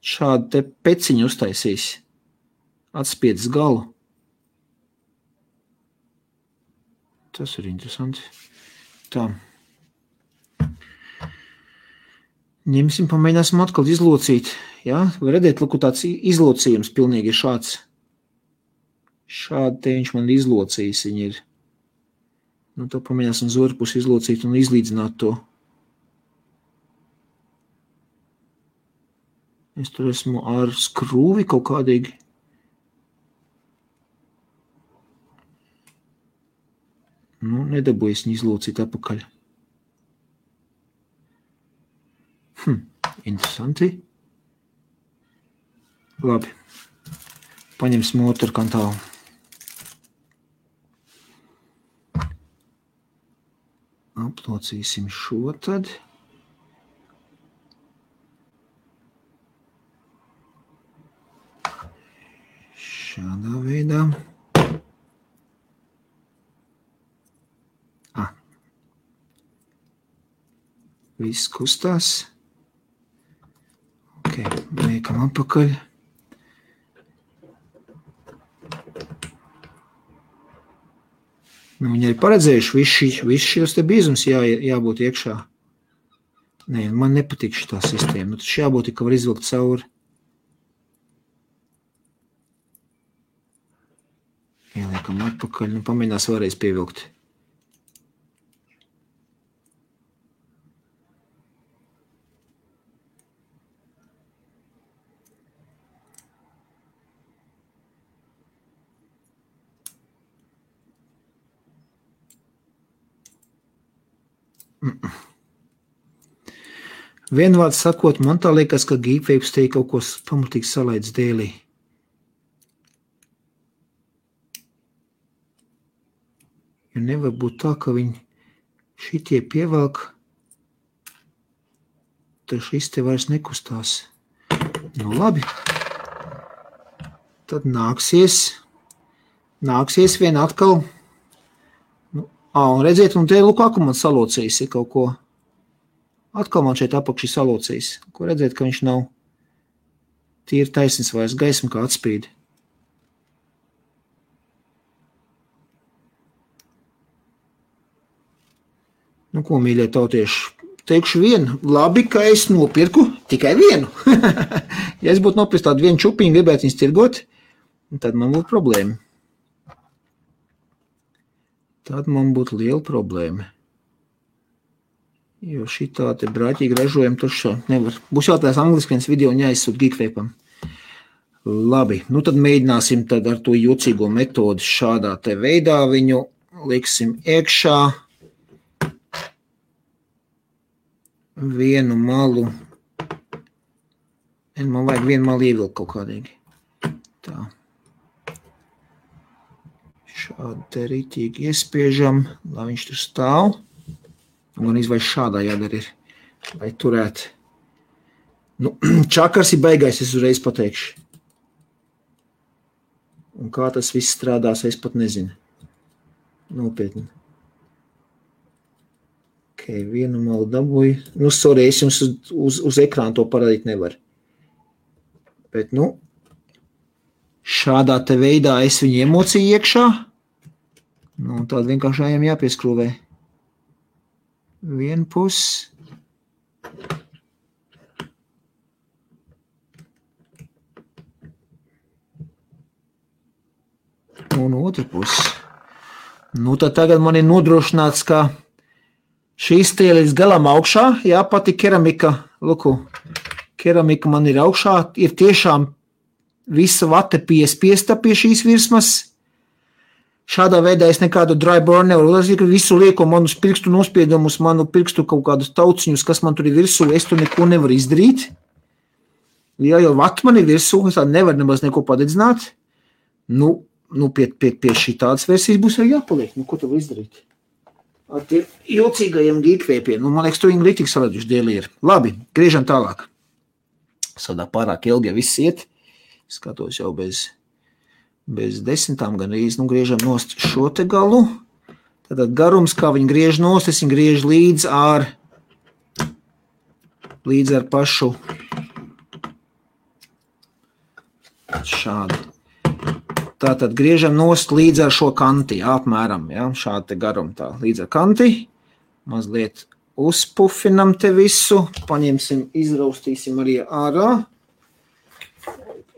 Speaker 1: Šādu te peciņu uztaisīs. Atspiedis galu. Tas ir interesanti. Tā. Ņemsim, pamēģināsim atkal izlocīt. Ja? Var redzēt, lūk, tāds izlocījums pilnīgi ir šāds. Šādi te viņš man izlocījis. Viņi ir. Nu, to pamēģināsim uz otru pusi izlocīt un izlīdzināt to. Es tur esmu ar skrūvi kaut kādīgi. Nu, nedabūjies viņu izlocīt apakaļ. Interesanti. Labi. Paņemsim otru kantālu. Aplocīsim šo tad. Šādā veidā. Viss kustās. Ok, liekam apakaļ. Nu, viņi arī paredzējuši visu šos te bīzums jābūt iekšā. Nē, man nepatīk šitā sistēma. Tad jābūt, ka var izvilkt cauri. Ieliekam atpakaļ, nu pamēģinās vēlreiz pievilkt. Vienvārds sakot, man tā liekas, ka Geekwebs te kaut ko pamatīgi salaidz dēlī. Jo nevar būt tā, ka viņi šitie pievelk, tad šis te vairs nekustās. Nu labi. Tad nāksies vien atkal. Un redziet, un te lūk, kā man salocījis ir kaut ko. Atkal man šeit apakši salocījis. Ko redzēt, ka viņš nav tīri taisnis vairs gaisma kā atspīd. Nu, ko, mīļie tautieši, teikšu vienu. Labi, ka es nopirku tikai vienu. Ja es būtu nopirkt tādu vienu čupiņu, gribētu viņus tirgot, tad man būtu problēma. Tad man būtu liela problēma. Jo šitā te brāķīgi ražojam tur nevar. Būs jātājās angliski viens video un jāizsūt Geekwebam. Labi, nu tad mēģināsim tad ar to jocīgo metodi šādā te veidā viņu liksim iekšā. Vienu malu. Man vajag vienu malu ievilkt kaut kādīgi. Tā. Šādi te rītīgi iespiežam, lai viņš tur stāv. Un gan izvairs šādā jādara ir, lai turētu. Nu, čakars ir baigais, es uzreiz pateikšu. Un kā tas viss strādās, es pat nezinu. Nopietni. Ok, vienu malu dabūju. Nu, sorry, es jums uz ekrānu to parādīt nevaru. Bet, nu, šādā te veidā es viņu emociju iekšā. Nu, un tādu vienkārši ejam jāpieskrūvē. Vienu pusi. Un otru pusi. Nu, tad tagad man ir nodrošināts, ka šīs tie līdz galam augšā, jā, pati keramika, luku, keramika man ir augšā, ir tiešām visa vate piespiesta pie šīs virsmas. Šādā veidā es nekādu dry burn nevaru uzlazīt, ka visu lieku manus pirkstu nospiedumus, manu pirkstu kaut kādus tauciņus, kas man tur ir virsū, es tur neko nevaru izdarīt. Jā, jo vata man ir virsū, es tā nevaru nemaz neko padedzināt. Nu, pie šī tādas versijas būs arī jāpaliek. Nu, ko tu var izdarīt? Ar tiem jocīgajiem geekvēpiem. Nu, man liekas, tu viņi litīgi salēduši dēli ir. Labi, griežam tālāk. Sadā pārāk ilgi jau viss iet. Skatos jau bez 10 gan īsti. Nu, griežam nost šo te galu. Tātad garums, kā viņi griež nost, es viņi griež līdz ar pašu šādu. Tātad griežam nost līdz ar šo kanti, jā, apmēram, jā, šādi te garumu tā, līdz ar kanti. Mazliet uzpufinam te visu, paņemsim, izraustīsim arī ārā.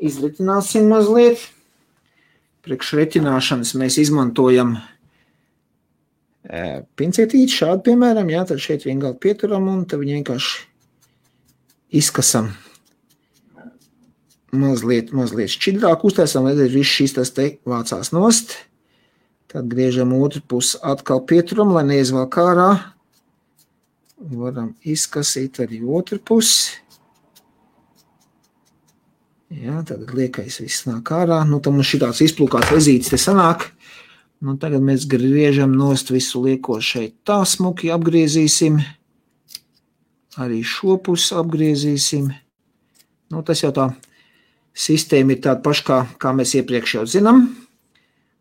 Speaker 1: Izretināsim mazliet. Priekš retināšanas mēs izmantojam pincetīti šādi, piemēram, jā, tad šeit vienkārši pieturam un tad viņu vienkārši izkasam. Mazliet šķidrāk uztaisam, lai viss šīs tas te vācās nost. Tad griežam otru pusi atkal pieturam, lai neizvelk ārā. Varam izkasīt arī otru pusi. Jā, tad liekais viss nāk ārā. Nu, tad mums šitāds izplūkāts vezītis te sanāk. Nu, tagad mēs griežam nost visu lieko šeit tā smuki apgriezīsim. Arī šo pusi apgriezīsim. Nu, tas jau tā sistēma ir tāda paša, kā mēs iepriekš jau zinām.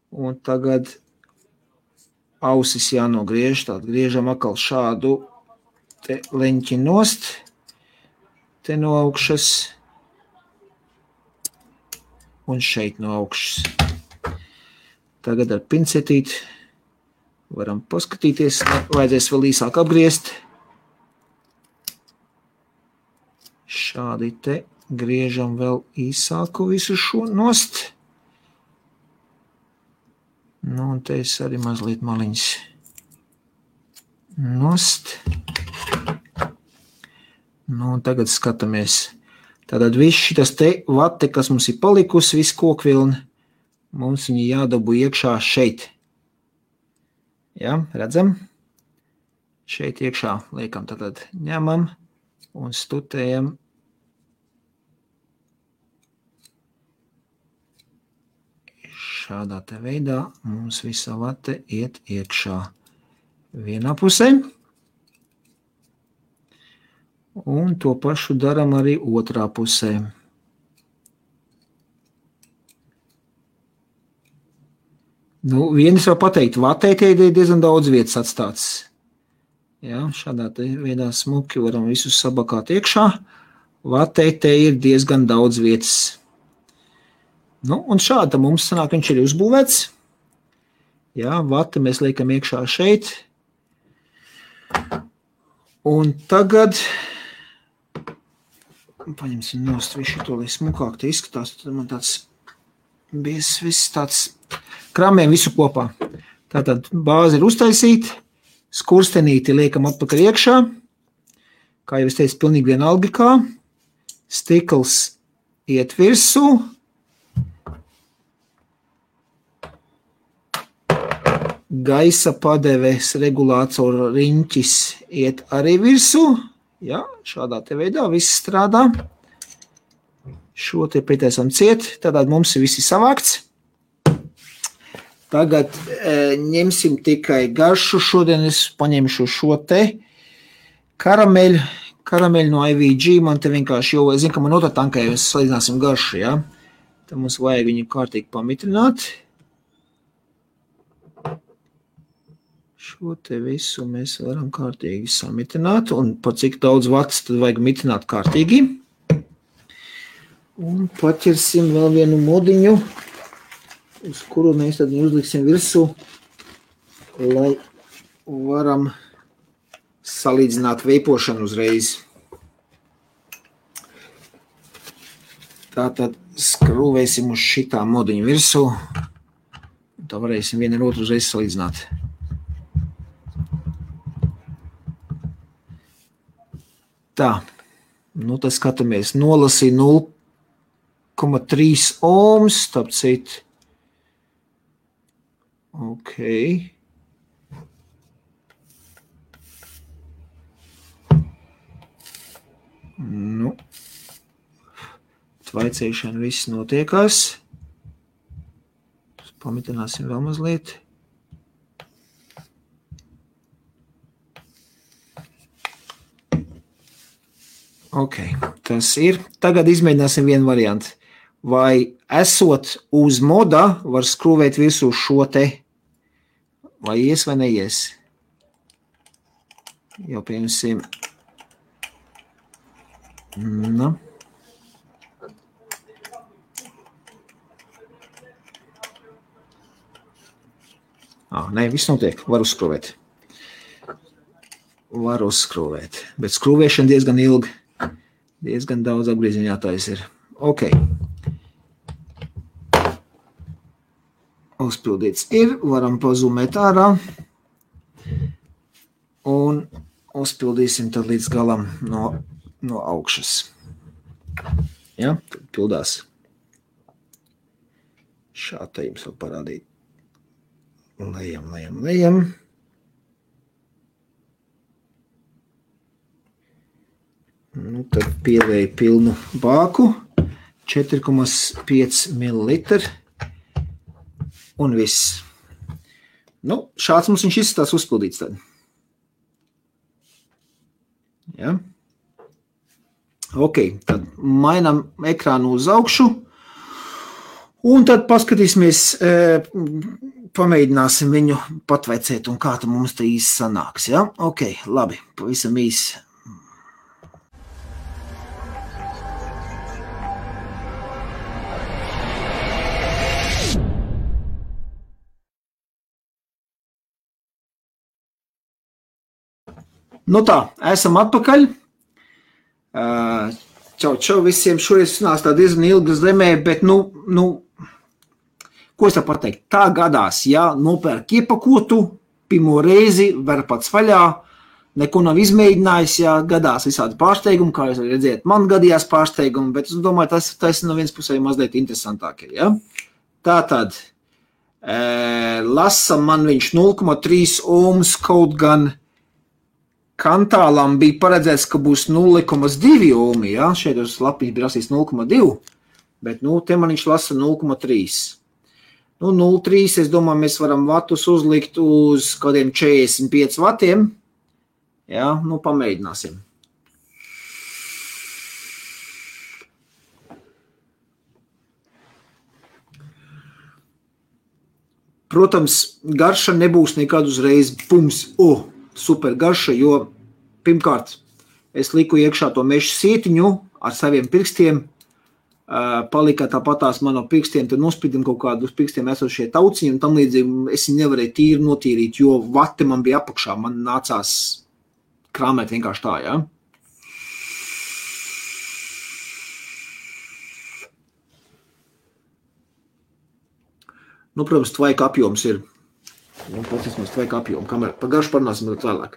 Speaker 1: Un tagad ausis jānogriež. Tātad griežam atkal šādu te leņķi nost. Te no augšas. Un šeit no augšas. Tagad ar pincetīti varam paskatīties. Vajadzēs vēl īsāk apgriezt. Šādi te. Griežam vēl īsāku visu šo nost. Nu, un te es arī mazliet maliņas nost. Nu, un tagad skatāmies. Tātad viss šitas te vate, kas mums ir palikusi, viss kokvilni, mums viņi jādabū iekšā šeit. Jā, redzam? Šeit iekšā liekam, tātad ņemam un stutējam. Šādā te veidā mums visa vate iet iekšā vienā pusē. Un to pašu daram arī otrā pusē. Nu, viens var pateikt, vatē te ir diezgan daudz vietas atstāts. Jā, šādā te veidā smuki varam visus sabakāt iekšā. Vatē te ir diezgan daudz vietas. Nu, un šādi mums sanāk, viņš ir uzbūvēts. Jā, vata mēs liekam iekšā šeit. Un tagad paņemsim nost visu to, lai smukāk te izskatās. Tad man tāds viss tāds kramiem visu kopā. Tātad bāze ir uztaisīta, skurstenīti liekam atpakaļ iekšā. Kā jau es teicu, pilnīgi vienalga kā. Stikls iet virsū. Gaisa padeves regulātora riņķis iet arī virsū. Jā, šādā te veidā viss strādā. Šo te pieteisam ciet, tātad mums ir visi savākts. Tagad ņemsim tikai garšu. Šodien es paņemšu šo te karameļu no IVG. Man te vienkārši, jo es zinu, ka man otrā tankā jau salīdzināsim garšu, jā. Tad mums vajag viņu kārtīgi pamitrināt. Šo te visu mēs varam kārtīgi samitrināt, un par cik daudz vats tad vajag mitrināt kārtīgi. Un paķersim vēl vienu modiņu, uz kuru mēs tad uzliksim virsū, lai varam salīdzināt veipošanu uzreiz. Tātad skrūvēsim uz šitā modiņu virsū, tā varēsim vienu ar otru uzreiz salīdzināt. Tā, nu tad skatāmies, nolasīja 0,3 ohms, tāp cit. Ok. Nu, tvaicēšana viss notiekās. Pamitināsim vēl mazliet. Ok, tas ir. Tagad izmēģināsim vienu variantu. Vai esot uz moda var skrūvēt virsū šo te, vai ies vai neies? Jau pieņemsim. Nu. Nē, viss notiek. Var uzskrūvēt. Var uzskrūvēt. Bet skrūvēšana diezgan ilgi. Diezgan daudz apgrieziņu jātais ir. Ok. Uzpildīts ir. Varam pazumēt ārā. Un uzpildīsim tad līdz galam no augšas. Ja, tad pildās. Šā te jums vēl parādīt. Lejam. Nu, tad pielēju pilnu bāku, 4,5 ml un viss. Nu, šāds mums viņš izskatās uzpildīts tad. Ja. Ok, tad mainām ekrānu uz augšu un tad paskatīsimies, pamēģināsim viņu patveicēt un kā tad mums te īsti sanāks. Ja? Ok, labi, pavisam īsi. Nu tā, esam atpakaļ. Čau visiem. Šoreiz sanāks tā diezgan ilga zemē, bet ko es tā pateikt? Tā gadās, ja nopērk iepakotu, pirmo reizi, ver pats vaļā, neko nav izmēģinājis, ja gadās visādi pārsteigumi, kā jūs redzēt, man gadījās pārsteigumi, bet es domāju, tas no viens pusē mazliet interesantākie, ja? Tātad, lasa man viņš 0,3 ohms, kaut gan kantālam bija paredzēts, ka būs 0,2 ohmi, ja? Šeit uz lapiņas bija rasīs 0,2, bet te man viņš lasa 0,3. 0,3, es domāju, mēs varam vatus uzlikt uz kādiem 45 vatiem. Ja? Pamēģināsim. Protams, garša nebūs nekad uzreiz pums, super garša, jo pirmkārt es liku iekšā to meža sietiņu ar saviem pirkstiem, palika tāpatās man no pirkstiem, tad nospīdim kaut kādu uz pirkstiem esošie tauciņi, un tam līdzīgi es nevarēju tīri notīrīt, jo vati man bija apakšā, man nācās krāmēt vienkārši tā, ja? Protams, tvaika apjoms ir. Patīsmās tvaika apjomu, kamēr par garšu parunāsim vēl vēlāk.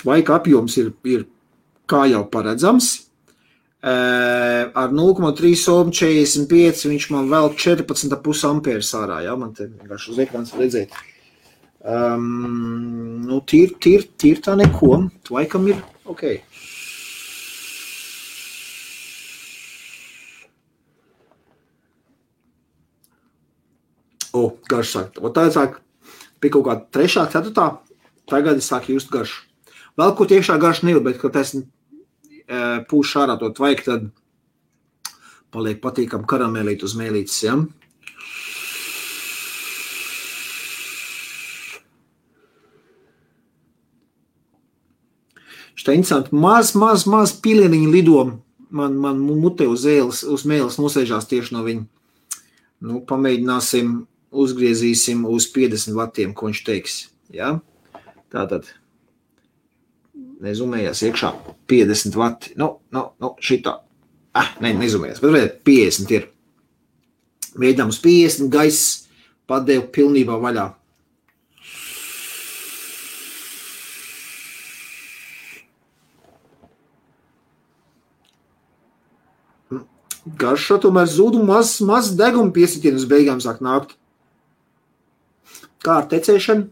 Speaker 1: Tvaika apjoms ir kā jau paredzams. Ar 0,3 ohm 45 viņš man vēl 14,5 ampērs ārā. Ja? Man te vienkārši uz ekrāns redzēt. Tīr tā neko. Tvaikam ir ok. Garš sāk. Tā sāk pie kaut kāda 3., 4. tagad es sāku just garšu. Vēl ko iekšā garšu nevar, bet, kad es pūšu ārā to tvaiku, tad paliek patīkam karamelīt uz mēlītes, ja? Šitā interesanti, maz pilieniņi lido man mutē uz mēles nosēžās tieši no viņa. Nu, pamēģināsim, uzgriezīsim uz 50 vatiem, ko viņš teiks, ja? Tātad, nezumējās iekšā 50 vati, šitā. Nezumējās, bet redz, 50 ir. Mēģinām uz 50, gaiss padevu pilnībā vaļā. Garšo tomēr zūd un maz deguma piesitienu uz beigām sāk nākt. Kā ar tecēšanu?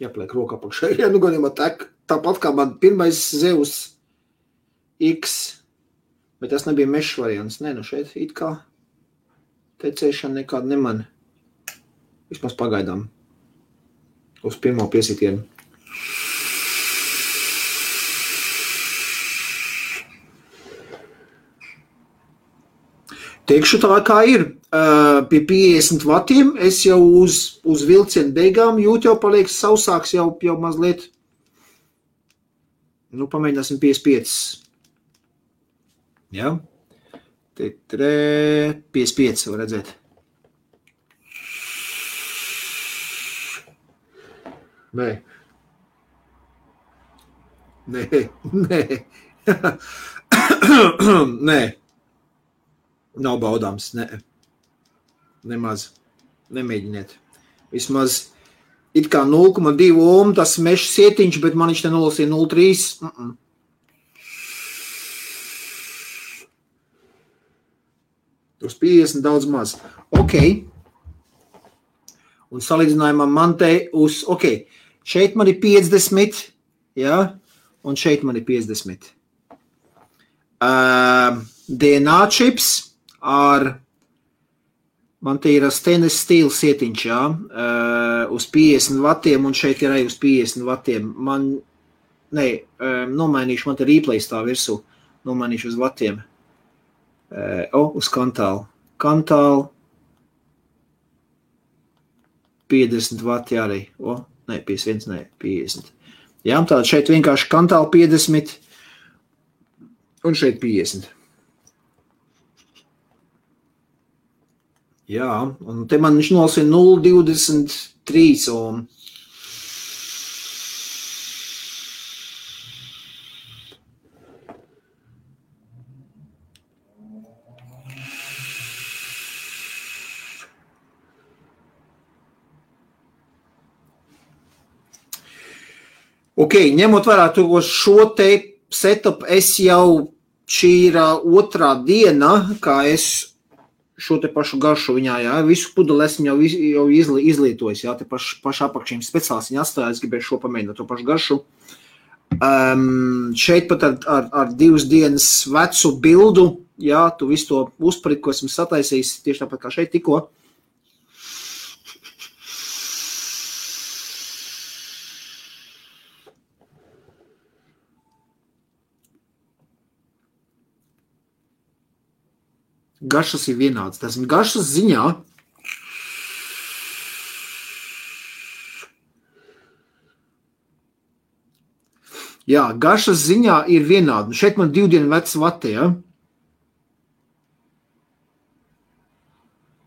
Speaker 1: Jāpliek roka apakšā. Ja, gadījumā tāpat kā man pirmais Zeus X, bet tas nebija mešs variants. Nē, šeit it kā tecēšana nekāda neman. Vismaz pagaidām. Uz pirmo piesitienu. Teikšu tā, kā ir. Pie 50 vatiem es jau uz vilcienu beigām jūt jau paliek sausāks jau mazliet. Nu, pamēģināsim 55. Ja? 55 var redzēt. Nē. Nav baudāms, nemaz, nemēģiniet. Vismaz it kā 0,2 ohm tas mešs sietiņš, bet man viņš te nolasīja 0,3. Uz 50 daudz maz. Ok. Un salīdzinājumā man te uz, ok, šeit man ir 50, ja, un šeit man ir 50. DNA čips ar, man te ir stainless steel sietiņš, jā, uz 50 vatiem, un šeit ir arī uz 50 vatiem. Nomainīšu, man te replay stāv virsū, nomainīšu uz vatiem. Uz kantālu. Kantālu 50 vati arī. 50. Jā, tātad šeit vienkārši kantālu 50 un šeit 50. Jā, un te man viņš nolasīja 0,23 ohm. Ok, ņemot vērā to šo te setup, es jau šī ir otrā diena, kā es šo te pašu garšu viņā, jā, visu pudeli esmu jau izlietojis, jā, te pašu apakšiem speciāls viņa atstājās, es gribēju šo pamēģināt to pašu garšu. Šeit pat ar 2 dienas vecu bildu, jā, tu visu to uzprit, ko esmu sataisījis, tieši tāpat kā šeit tikko. Garšas ir vienāds. Tas garšas ziņā jā, garšas ziņā ir vienādi. Šeit man 2 dienu vecs vati, ja?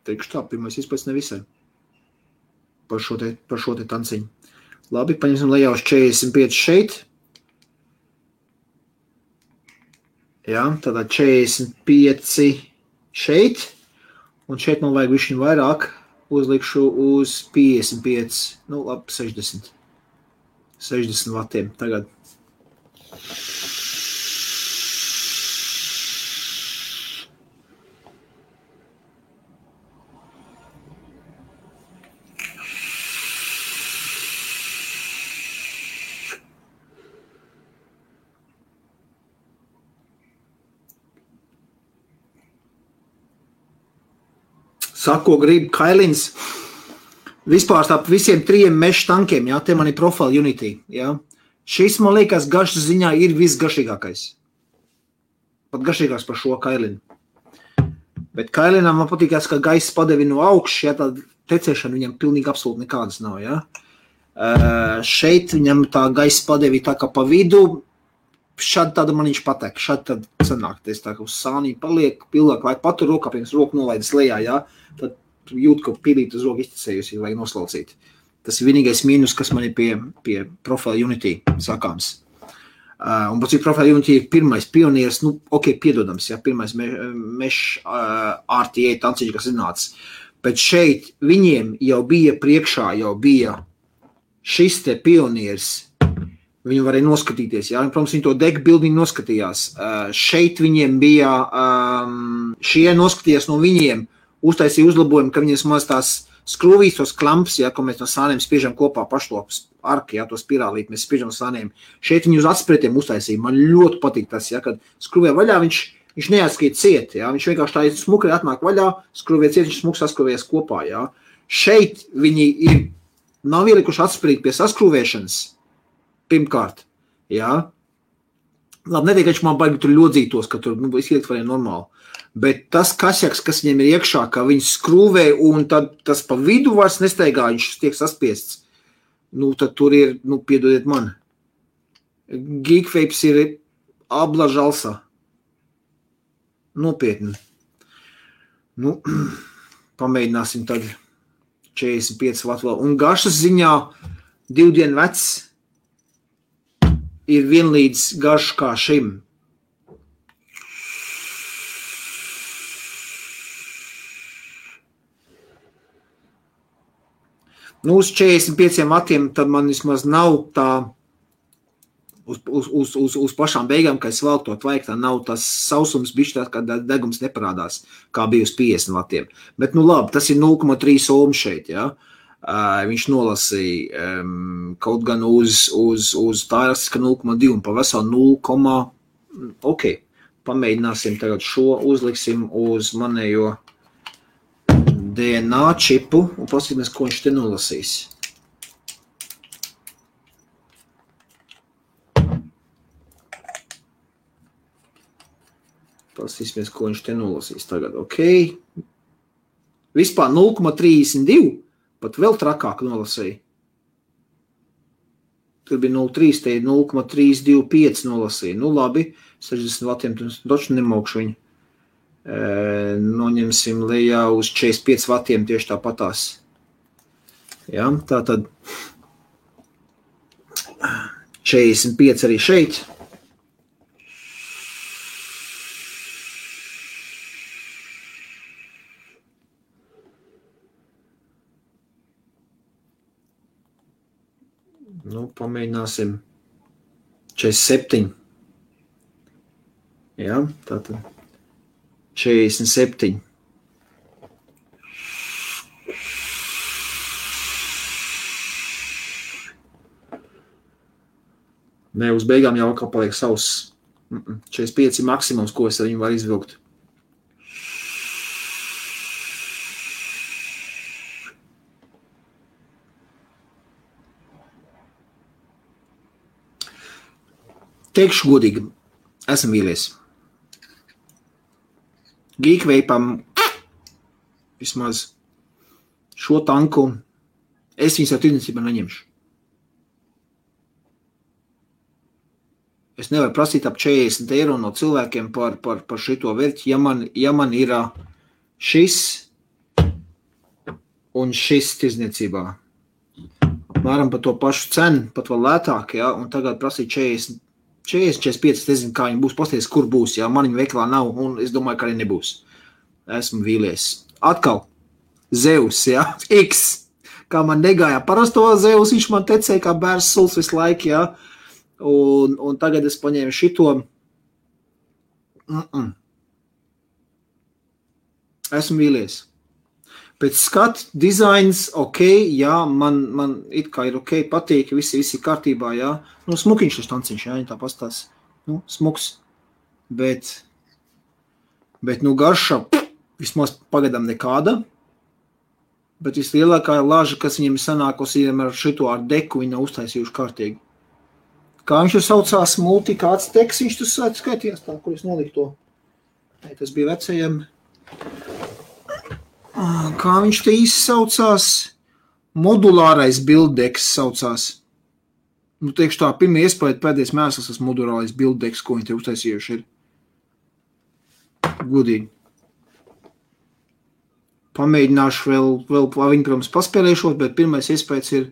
Speaker 1: Teikšu tā, pirmais izpēc nevisai. Par šo te tanciņu. Labi, paņemsim lejā uz 45 šeit. Jā, tādā 45 šeit, un šeit man vajag višķiņ vairāk, uzlikšu uz 55, labi, 60 vatiem tagad. Sako, grib Kailins. Vispār starp visiem 3 meža tankiem, jā, te man ir Profile Unity, jā. Šis, man liekas, garšas ziņā ir visgaršīgākais. Pat garšīgāks par šo kailinu. Bet kailinām man patīkās, ka gaisa padevi no augšas, ja tā tecēšana viņam pilnīgi absolūti nekādas nav, ja. Šeit viņam tā gaisa padevi tā kā pa vidu, šādi tāda man viņš patek, šādi tad sanāk, tā kā uz sānī paliek, pilnāk laik patur rokā, pirms roku nolaidas lejā, ja, tad jūt, ka pilīt uz roku izticējusi, vajag noslaucīt. Tas ir vienīgais mīnus, kas man ir pie Profile Unity sakāms. Un pēc cik Profile Unity ir pirmais pionieris, nu, ok, piedodams, ja, pirmais RTA tanciņš, kas iznāca. Bet šeit viņiem jau bija priekšā, jau bija šis te pionieris, viņi varēja noskatīties, ja, un, protams, viņi to deck building noskatījās. Šeit viņiem bija, šie noskatījās no viņiem, uztaisīja uzlabojumu, ka viņiem maz tās skrūvīs, tos klamps, ja, ko mēs no sāniem spiežam kopā pašlopas arki, ja, to spirālīt, mēs spiežam no sāniem. Šeit viņi uz atspretiem uztaisīja. Man ļoti patīk tas, ja, kad skrūvē vaļā viņš neatskīt ciet, ja, viņš vienkārši tā smukai atnāk vaļā, skrūvē ciet, viņš smuks saskrūvējas kopā, ja. Šeit viņi nav ielikuši atsprīt pie saskrūvēšanas, pirmkārt, ja. Labi, netiek, ka viņš man baigi tur ļodzītos, ka tur, izliekt varēja normāli. Bet tas kasjaks, kas viņiem ir iekšā, ka viņi skrūvē un tad tas pa vidu vairs nesteigā, viņš tiek saspiests. Nu, tad tur ir, nu, piedodiet man. Geekvapes ir abla žalsa. Nopietni. Nu, pamēģināsim tad 45 vat vēl. Un garšas ziņā 2 dienu vecs ir vienlīdz garš kā šim. Nu, uz 45 vatiem tad man vismaz nav tā uz pašām beigām, ka es vēl to vajag, tā nav tas sausums bišķi tā, ka degums neparādās, kā bija uz 50 vatiem. Bet, nu labi, tas ir 0,3 ohm šeit, ja. Viņš nolasīja kaut gan uz tā rastika 0,2 un pa veselu 0, ok, pamēģināsim tagad šo, uzliksim uz manējo DNA čipu un paskatīsimies, ko viņš te nolasīs. Paskatīsimies, ko viņš te nolasīs tagad. Ok. Vispār 0,32, pat vēl trakāk nolasīja. Tur bija 0,3, te 0,325 nolasīja. Nu labi, 60 vatiem, taču nemokšu viņu. Noņemsim lejā uz 45 vatiem tieši tāpatās. Ja, tā tad 45 arī šeit. Nu, pamēģināsim 47. Ja, tā tad 47. Nē, uz beigām jau atkal paliek savs. 45 ir maksimums, ko es ar viņu varu izvilkt. Teikšu godīgi, esmu vīlies. Geekvapam vismaz šo tanku es viņus jau tirdzniecībā neņemšu. Es nevaru prasīt ap 40 eiro no cilvēkiem par šito vērķi, ja man ir šis un šis tirdzniecībā. Apmēram par to pašu cenu, pat vēl lētāk, ja, un tagad prasīt 45, es nezinu, kā viņi būs, pasties, kur būs, ja man viņa veikalā nav, un es domāju, ka arī nebūs. Esmu vīlies. Atkal, Zeus, ja, X, kā man negāja parasto Zeus, viņš man tecēja kā bērns suls visu laiku, ja, un tagad es paņēmu šito. Esmu vīlies. Pēc skatu, dizains, ok, jā, man it kā ir ok, patīk, visi kārtībā, jā. Nu, smukiņš tas tanciņš, jā, tā pastās. Nu, smuks. Bet, nu, garša vismaz pagadam nekāda. Bet vislielākā laža, kas viņiem sanākusi ar šito ar deku, viņi nav uztaisījuši kārtīgi. Kā viņš tur saucās, kāds teks viņš tur skaitījās tā, kur es noliku to. Tas bija vecajam. Kā viņš te īsti saucās? Modulārais bilddeks saucās. Nu, teikšu tā, pirmie iespēja pēdējais mēsls, tas modulārais bilddeks, ko viņi te uztaisījuši ir. Gudīgi. Pamēģināšu vēl viņi, protams, paspēlēšot, bet pirmais iespējas ir,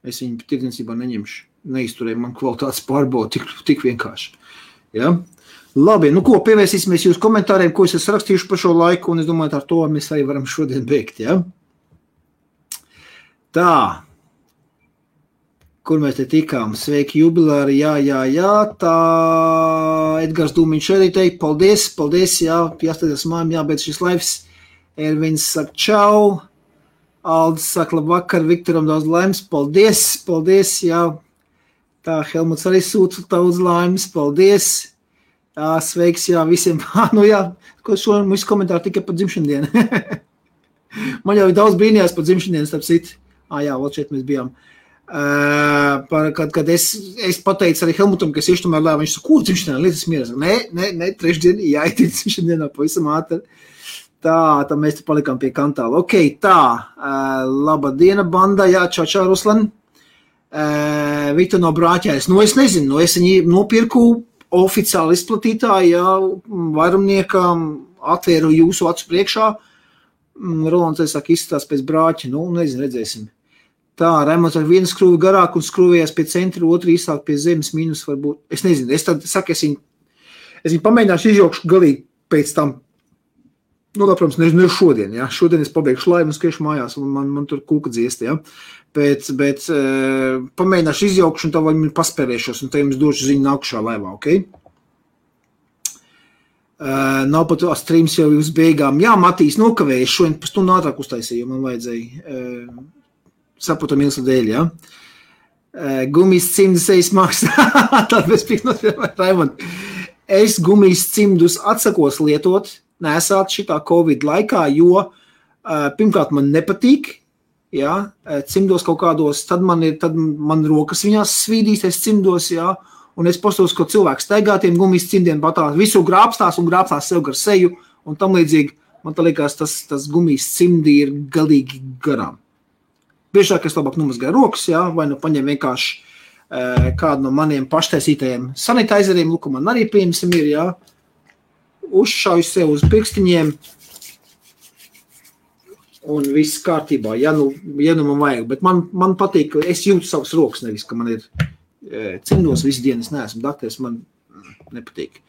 Speaker 1: es viņu tirdzniecībā neņemšu. Neizturēju man kvalitātes pārbaudu tik vienkārši. Ja? Labi, nu ko, pievērsīsimies jūs komentāriem, ko es esmu rakstījuši par šo laiku, un es domāju, ar to mēs arī varam šodien beigt. Ja? Tā. Kur mēs te tikām? Sveiki, jubilāri, jā, tā. Edgars Dūmiņš arī teikt, paldies, jā, jāstāties mājām, jābeidz šis laivs. Ervins saka čau, Aldis saka labvakar, Viktoram daudz laimes, paldies, jā. Tā, Helmuts arī sūta daudz laimes, paldies. Jā, sveiks, jā, visiem. Nu jā, šo visu komentāru tikai par dzimšandienu. Man jau ir daudz brīnījās par dzimšandienu, starp citu. Jā, vēl šeit mēs bijām. Kad es pateicu arī Helmutam, ka es iešu tomēr lēvu, viņš saka, kur dzimšandienā, lietas mieras? Nē, trešdien, jāiet dzimšandienā pavisam ātri. Tā mēs te palikām pie kantāla. Ok, tā, laba diena, banda, jā, čau, Ruslan. Viktor no Brāķēs. Nu, es nezinu, es viņu nopirku oficiāli izplatītāji, jā, vairumniekam atvēru jūsu acu priekšā. Rolands, es saku, izstās pēc Brāķa, nu, nezinu, redzēsim. Tā, Raimonds ar vienu skrūvi garāk un skrūvējās pie centra, otru īsāk pie zemes mīnus varbūt. Es nezinu, es tad saku, es viņu pamēģināšu izjaukšu galīgi pēc tam. Nu, protams, ne šodien, ja. Šodien es pabeigšu laivu un skriešu mājās, un man tur kūka dziesti, ja. Bet pamēģināšu izjaukšu un tā vai paspērēšos, un tā jums došu ziņu nākušā laivā, ok? Nav pat streams jau uz beigām. Jā, Matīs, nokavēju, šodien pa stundu ātrāk uztaisīju, man vajadzēja saprotam ilsa dēļ, ja. Gumijas cimdus ejas maksā, tād bez piknot, Raimond. Es gumijas cimdus atsakos lietot, nesāt šitā Covid laikā, jo pirmkārt man nepatīk, jā, cimdos kaut kādos, tad man rokas viņās svīdīsies cimdos, jā, un es postos, ko cilvēks staigā tiem gumijas cimdiem patās, visu grābstās un grābstās sev gar seju, un tam līdzīgi, man tā liekas, tas gumijas cimdi ir galīgi garām. Biežāk es labāk numazgāju rokas, jā, vai nu paņem vienkārši kādu no maniem paštaisītajiem sanitizeriem, lūk, man arī pieņemsim ir, jā, uzšauju sev uz pirkstiņiem un viss kārtībā, ja nu man vajag, bet man patīk, ka es jūtu savas rokas, nevis, ka man ir cimdos visu dienu, es neesmu dakteris, man nepatīk.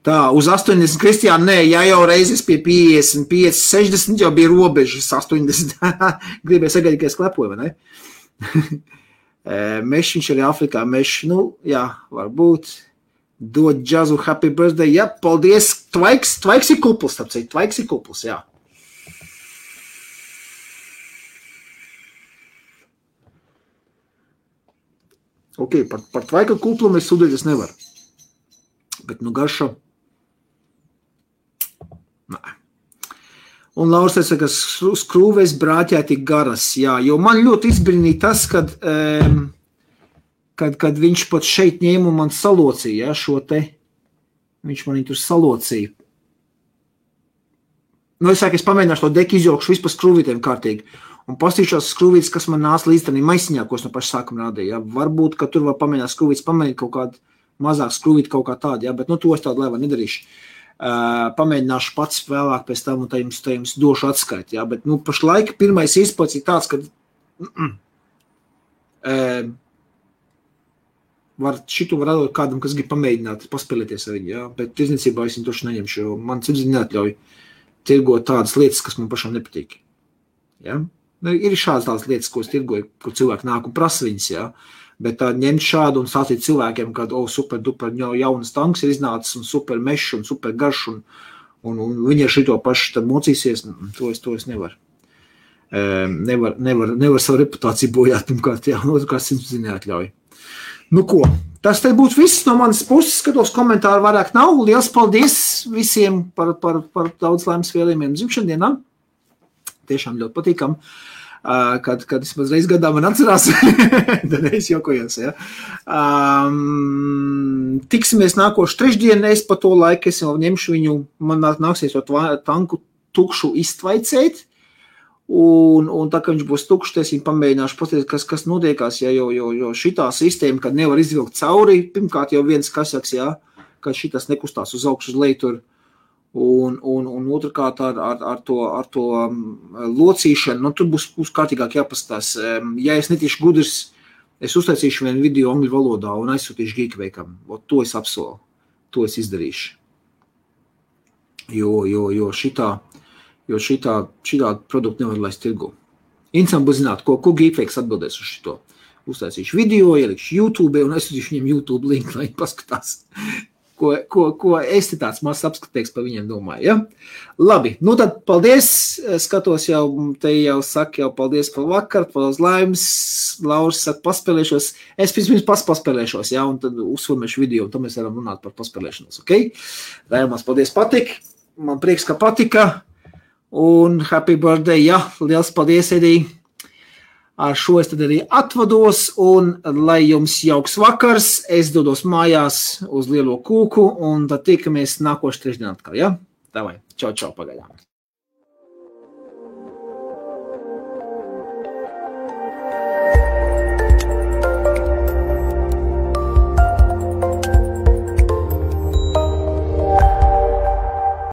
Speaker 1: Tā, uz 80, Kristiāna, nē, ja jau reizes pie 55, 60 jau bija robežas 80, gribēja sagaidīt, ka es klepoju, vai ne? Mešiņš arī Afrikā, nu, jā, varbūt. Dod džazu happy birthday, jā, paldies, Tvaiks ir kupls, Tvaiks ir kupls, jā. Ok, par Tvaika kuplumu es sūdēties nevaru, bet nu garša, nē. Un Lauris teica, ka skrūvēs Brāķē tik garas, jā, jo man ļoti izbrīnīja tas, kad viņš pat šeit ņēma un man salocīja, ja, šo te, viņš man tur salocīja. Nu, es pamēģināšu to deku izjaukšu vispār skrūvītēm kārtīgi, un pastīšos skrūvītes, kas man nāca līdz tādī maisiņā, ko es no paša sākuma rādīju, ja. Varbūt, ka tur var pamēģināt skrūvītes, pamēģināt kaut kādu mazāk skrūvīti kaut kā tādu, ja, bet nu to es tādu laivā nedarīšu. Pamēģināšu pats vēlāk pēc tam, un tā jums došu atskaiti, ja, bet nu pašlaik pirmais izpats ir tāds, ka šitu var atdot kādam, kas grib pamēģināt, paspēlēties ar viņu, ja? Bet tirdzniecībā es viņu toši neņemšu, jo man sirdsapziņa neatļauj tirgot tādas lietas, kas man pašam nepatīk. Ja? Ir šādas tādas lietas, ko es tirgoju, kur cilvēki nāk un prasa viņas, ja? Bet tā ņemt šādu un stāstīt cilvēkiem, kad super duper jaunas tanks ir iznācis un super mešs un super garš un viņi ar šito pašu tad mocīsies, to es nevaru. Nevar savu reputāciju bojāt, pirmkārt, jā, un otrkārt sirdsapziņa neatļauj. Nu ko, tas te būtu viss no manas puses, skatos komentāru vairāk nav. Liels paldies visiem par daudz laimes vēlējumiem dzimšandienām. tiešām ļoti patīkam. Kad vismaz reiz gadā man atcerās, tad es jokojos, ja. Tiksimies nākošu trešdienu, es pa to laiku, es jau ņemšu viņu, man nāksies to tanku tukšu iztvaicēt, un tā, ka viņš būs tukšs, es viņu pamēģināšu pateikt, kas notiekās, ja, jo šitā sistēma, kad nevar izvilkt cauri, pirmkārt jau viens kasaks, ja, ka šitas nekustās uz augšu uz leju tur, un otrkārt ar to locīšanu, nu, tur būs kārtīgāk jāpaskatās. Ja es netīšu gudrs, es uztaisīšu vienu video angļu valodā un aizsūtīšu Geekveikam. To es apsolu, to es izdarīšu. Jo šitā produktu nevar laist tirgu. Interesanti būs zināt, ko Geekveiks atbildēs uz šito. Uztaisīšu video, ielikšu YouTube un aizsūtīšu viņam YouTube linku, lai viņi paskatās. Ko es te tāds mazs apskatīgs par viņiem domāju, ja? Labi, nu tad paldies, skatos jau, te jau saka jau paldies par vakaru, par laimes, Lauris saka paspēlēšos, es pirms paspēlēšos, ja, un tad uzfilmēšu video, un tad mēs varam runāt par paspēlēšanos, ok? Raimās, paldies, patik, man prieks, ka patika, un happy birthday, ja, liels paldies, Edī. Ar šo es tad arī atvados, un lai jums jauks vakars, es dodos mājās uz lielo kūku, un tad tikamies nākošu trešdienu atkal, ja? Davai, čau, pagaidām.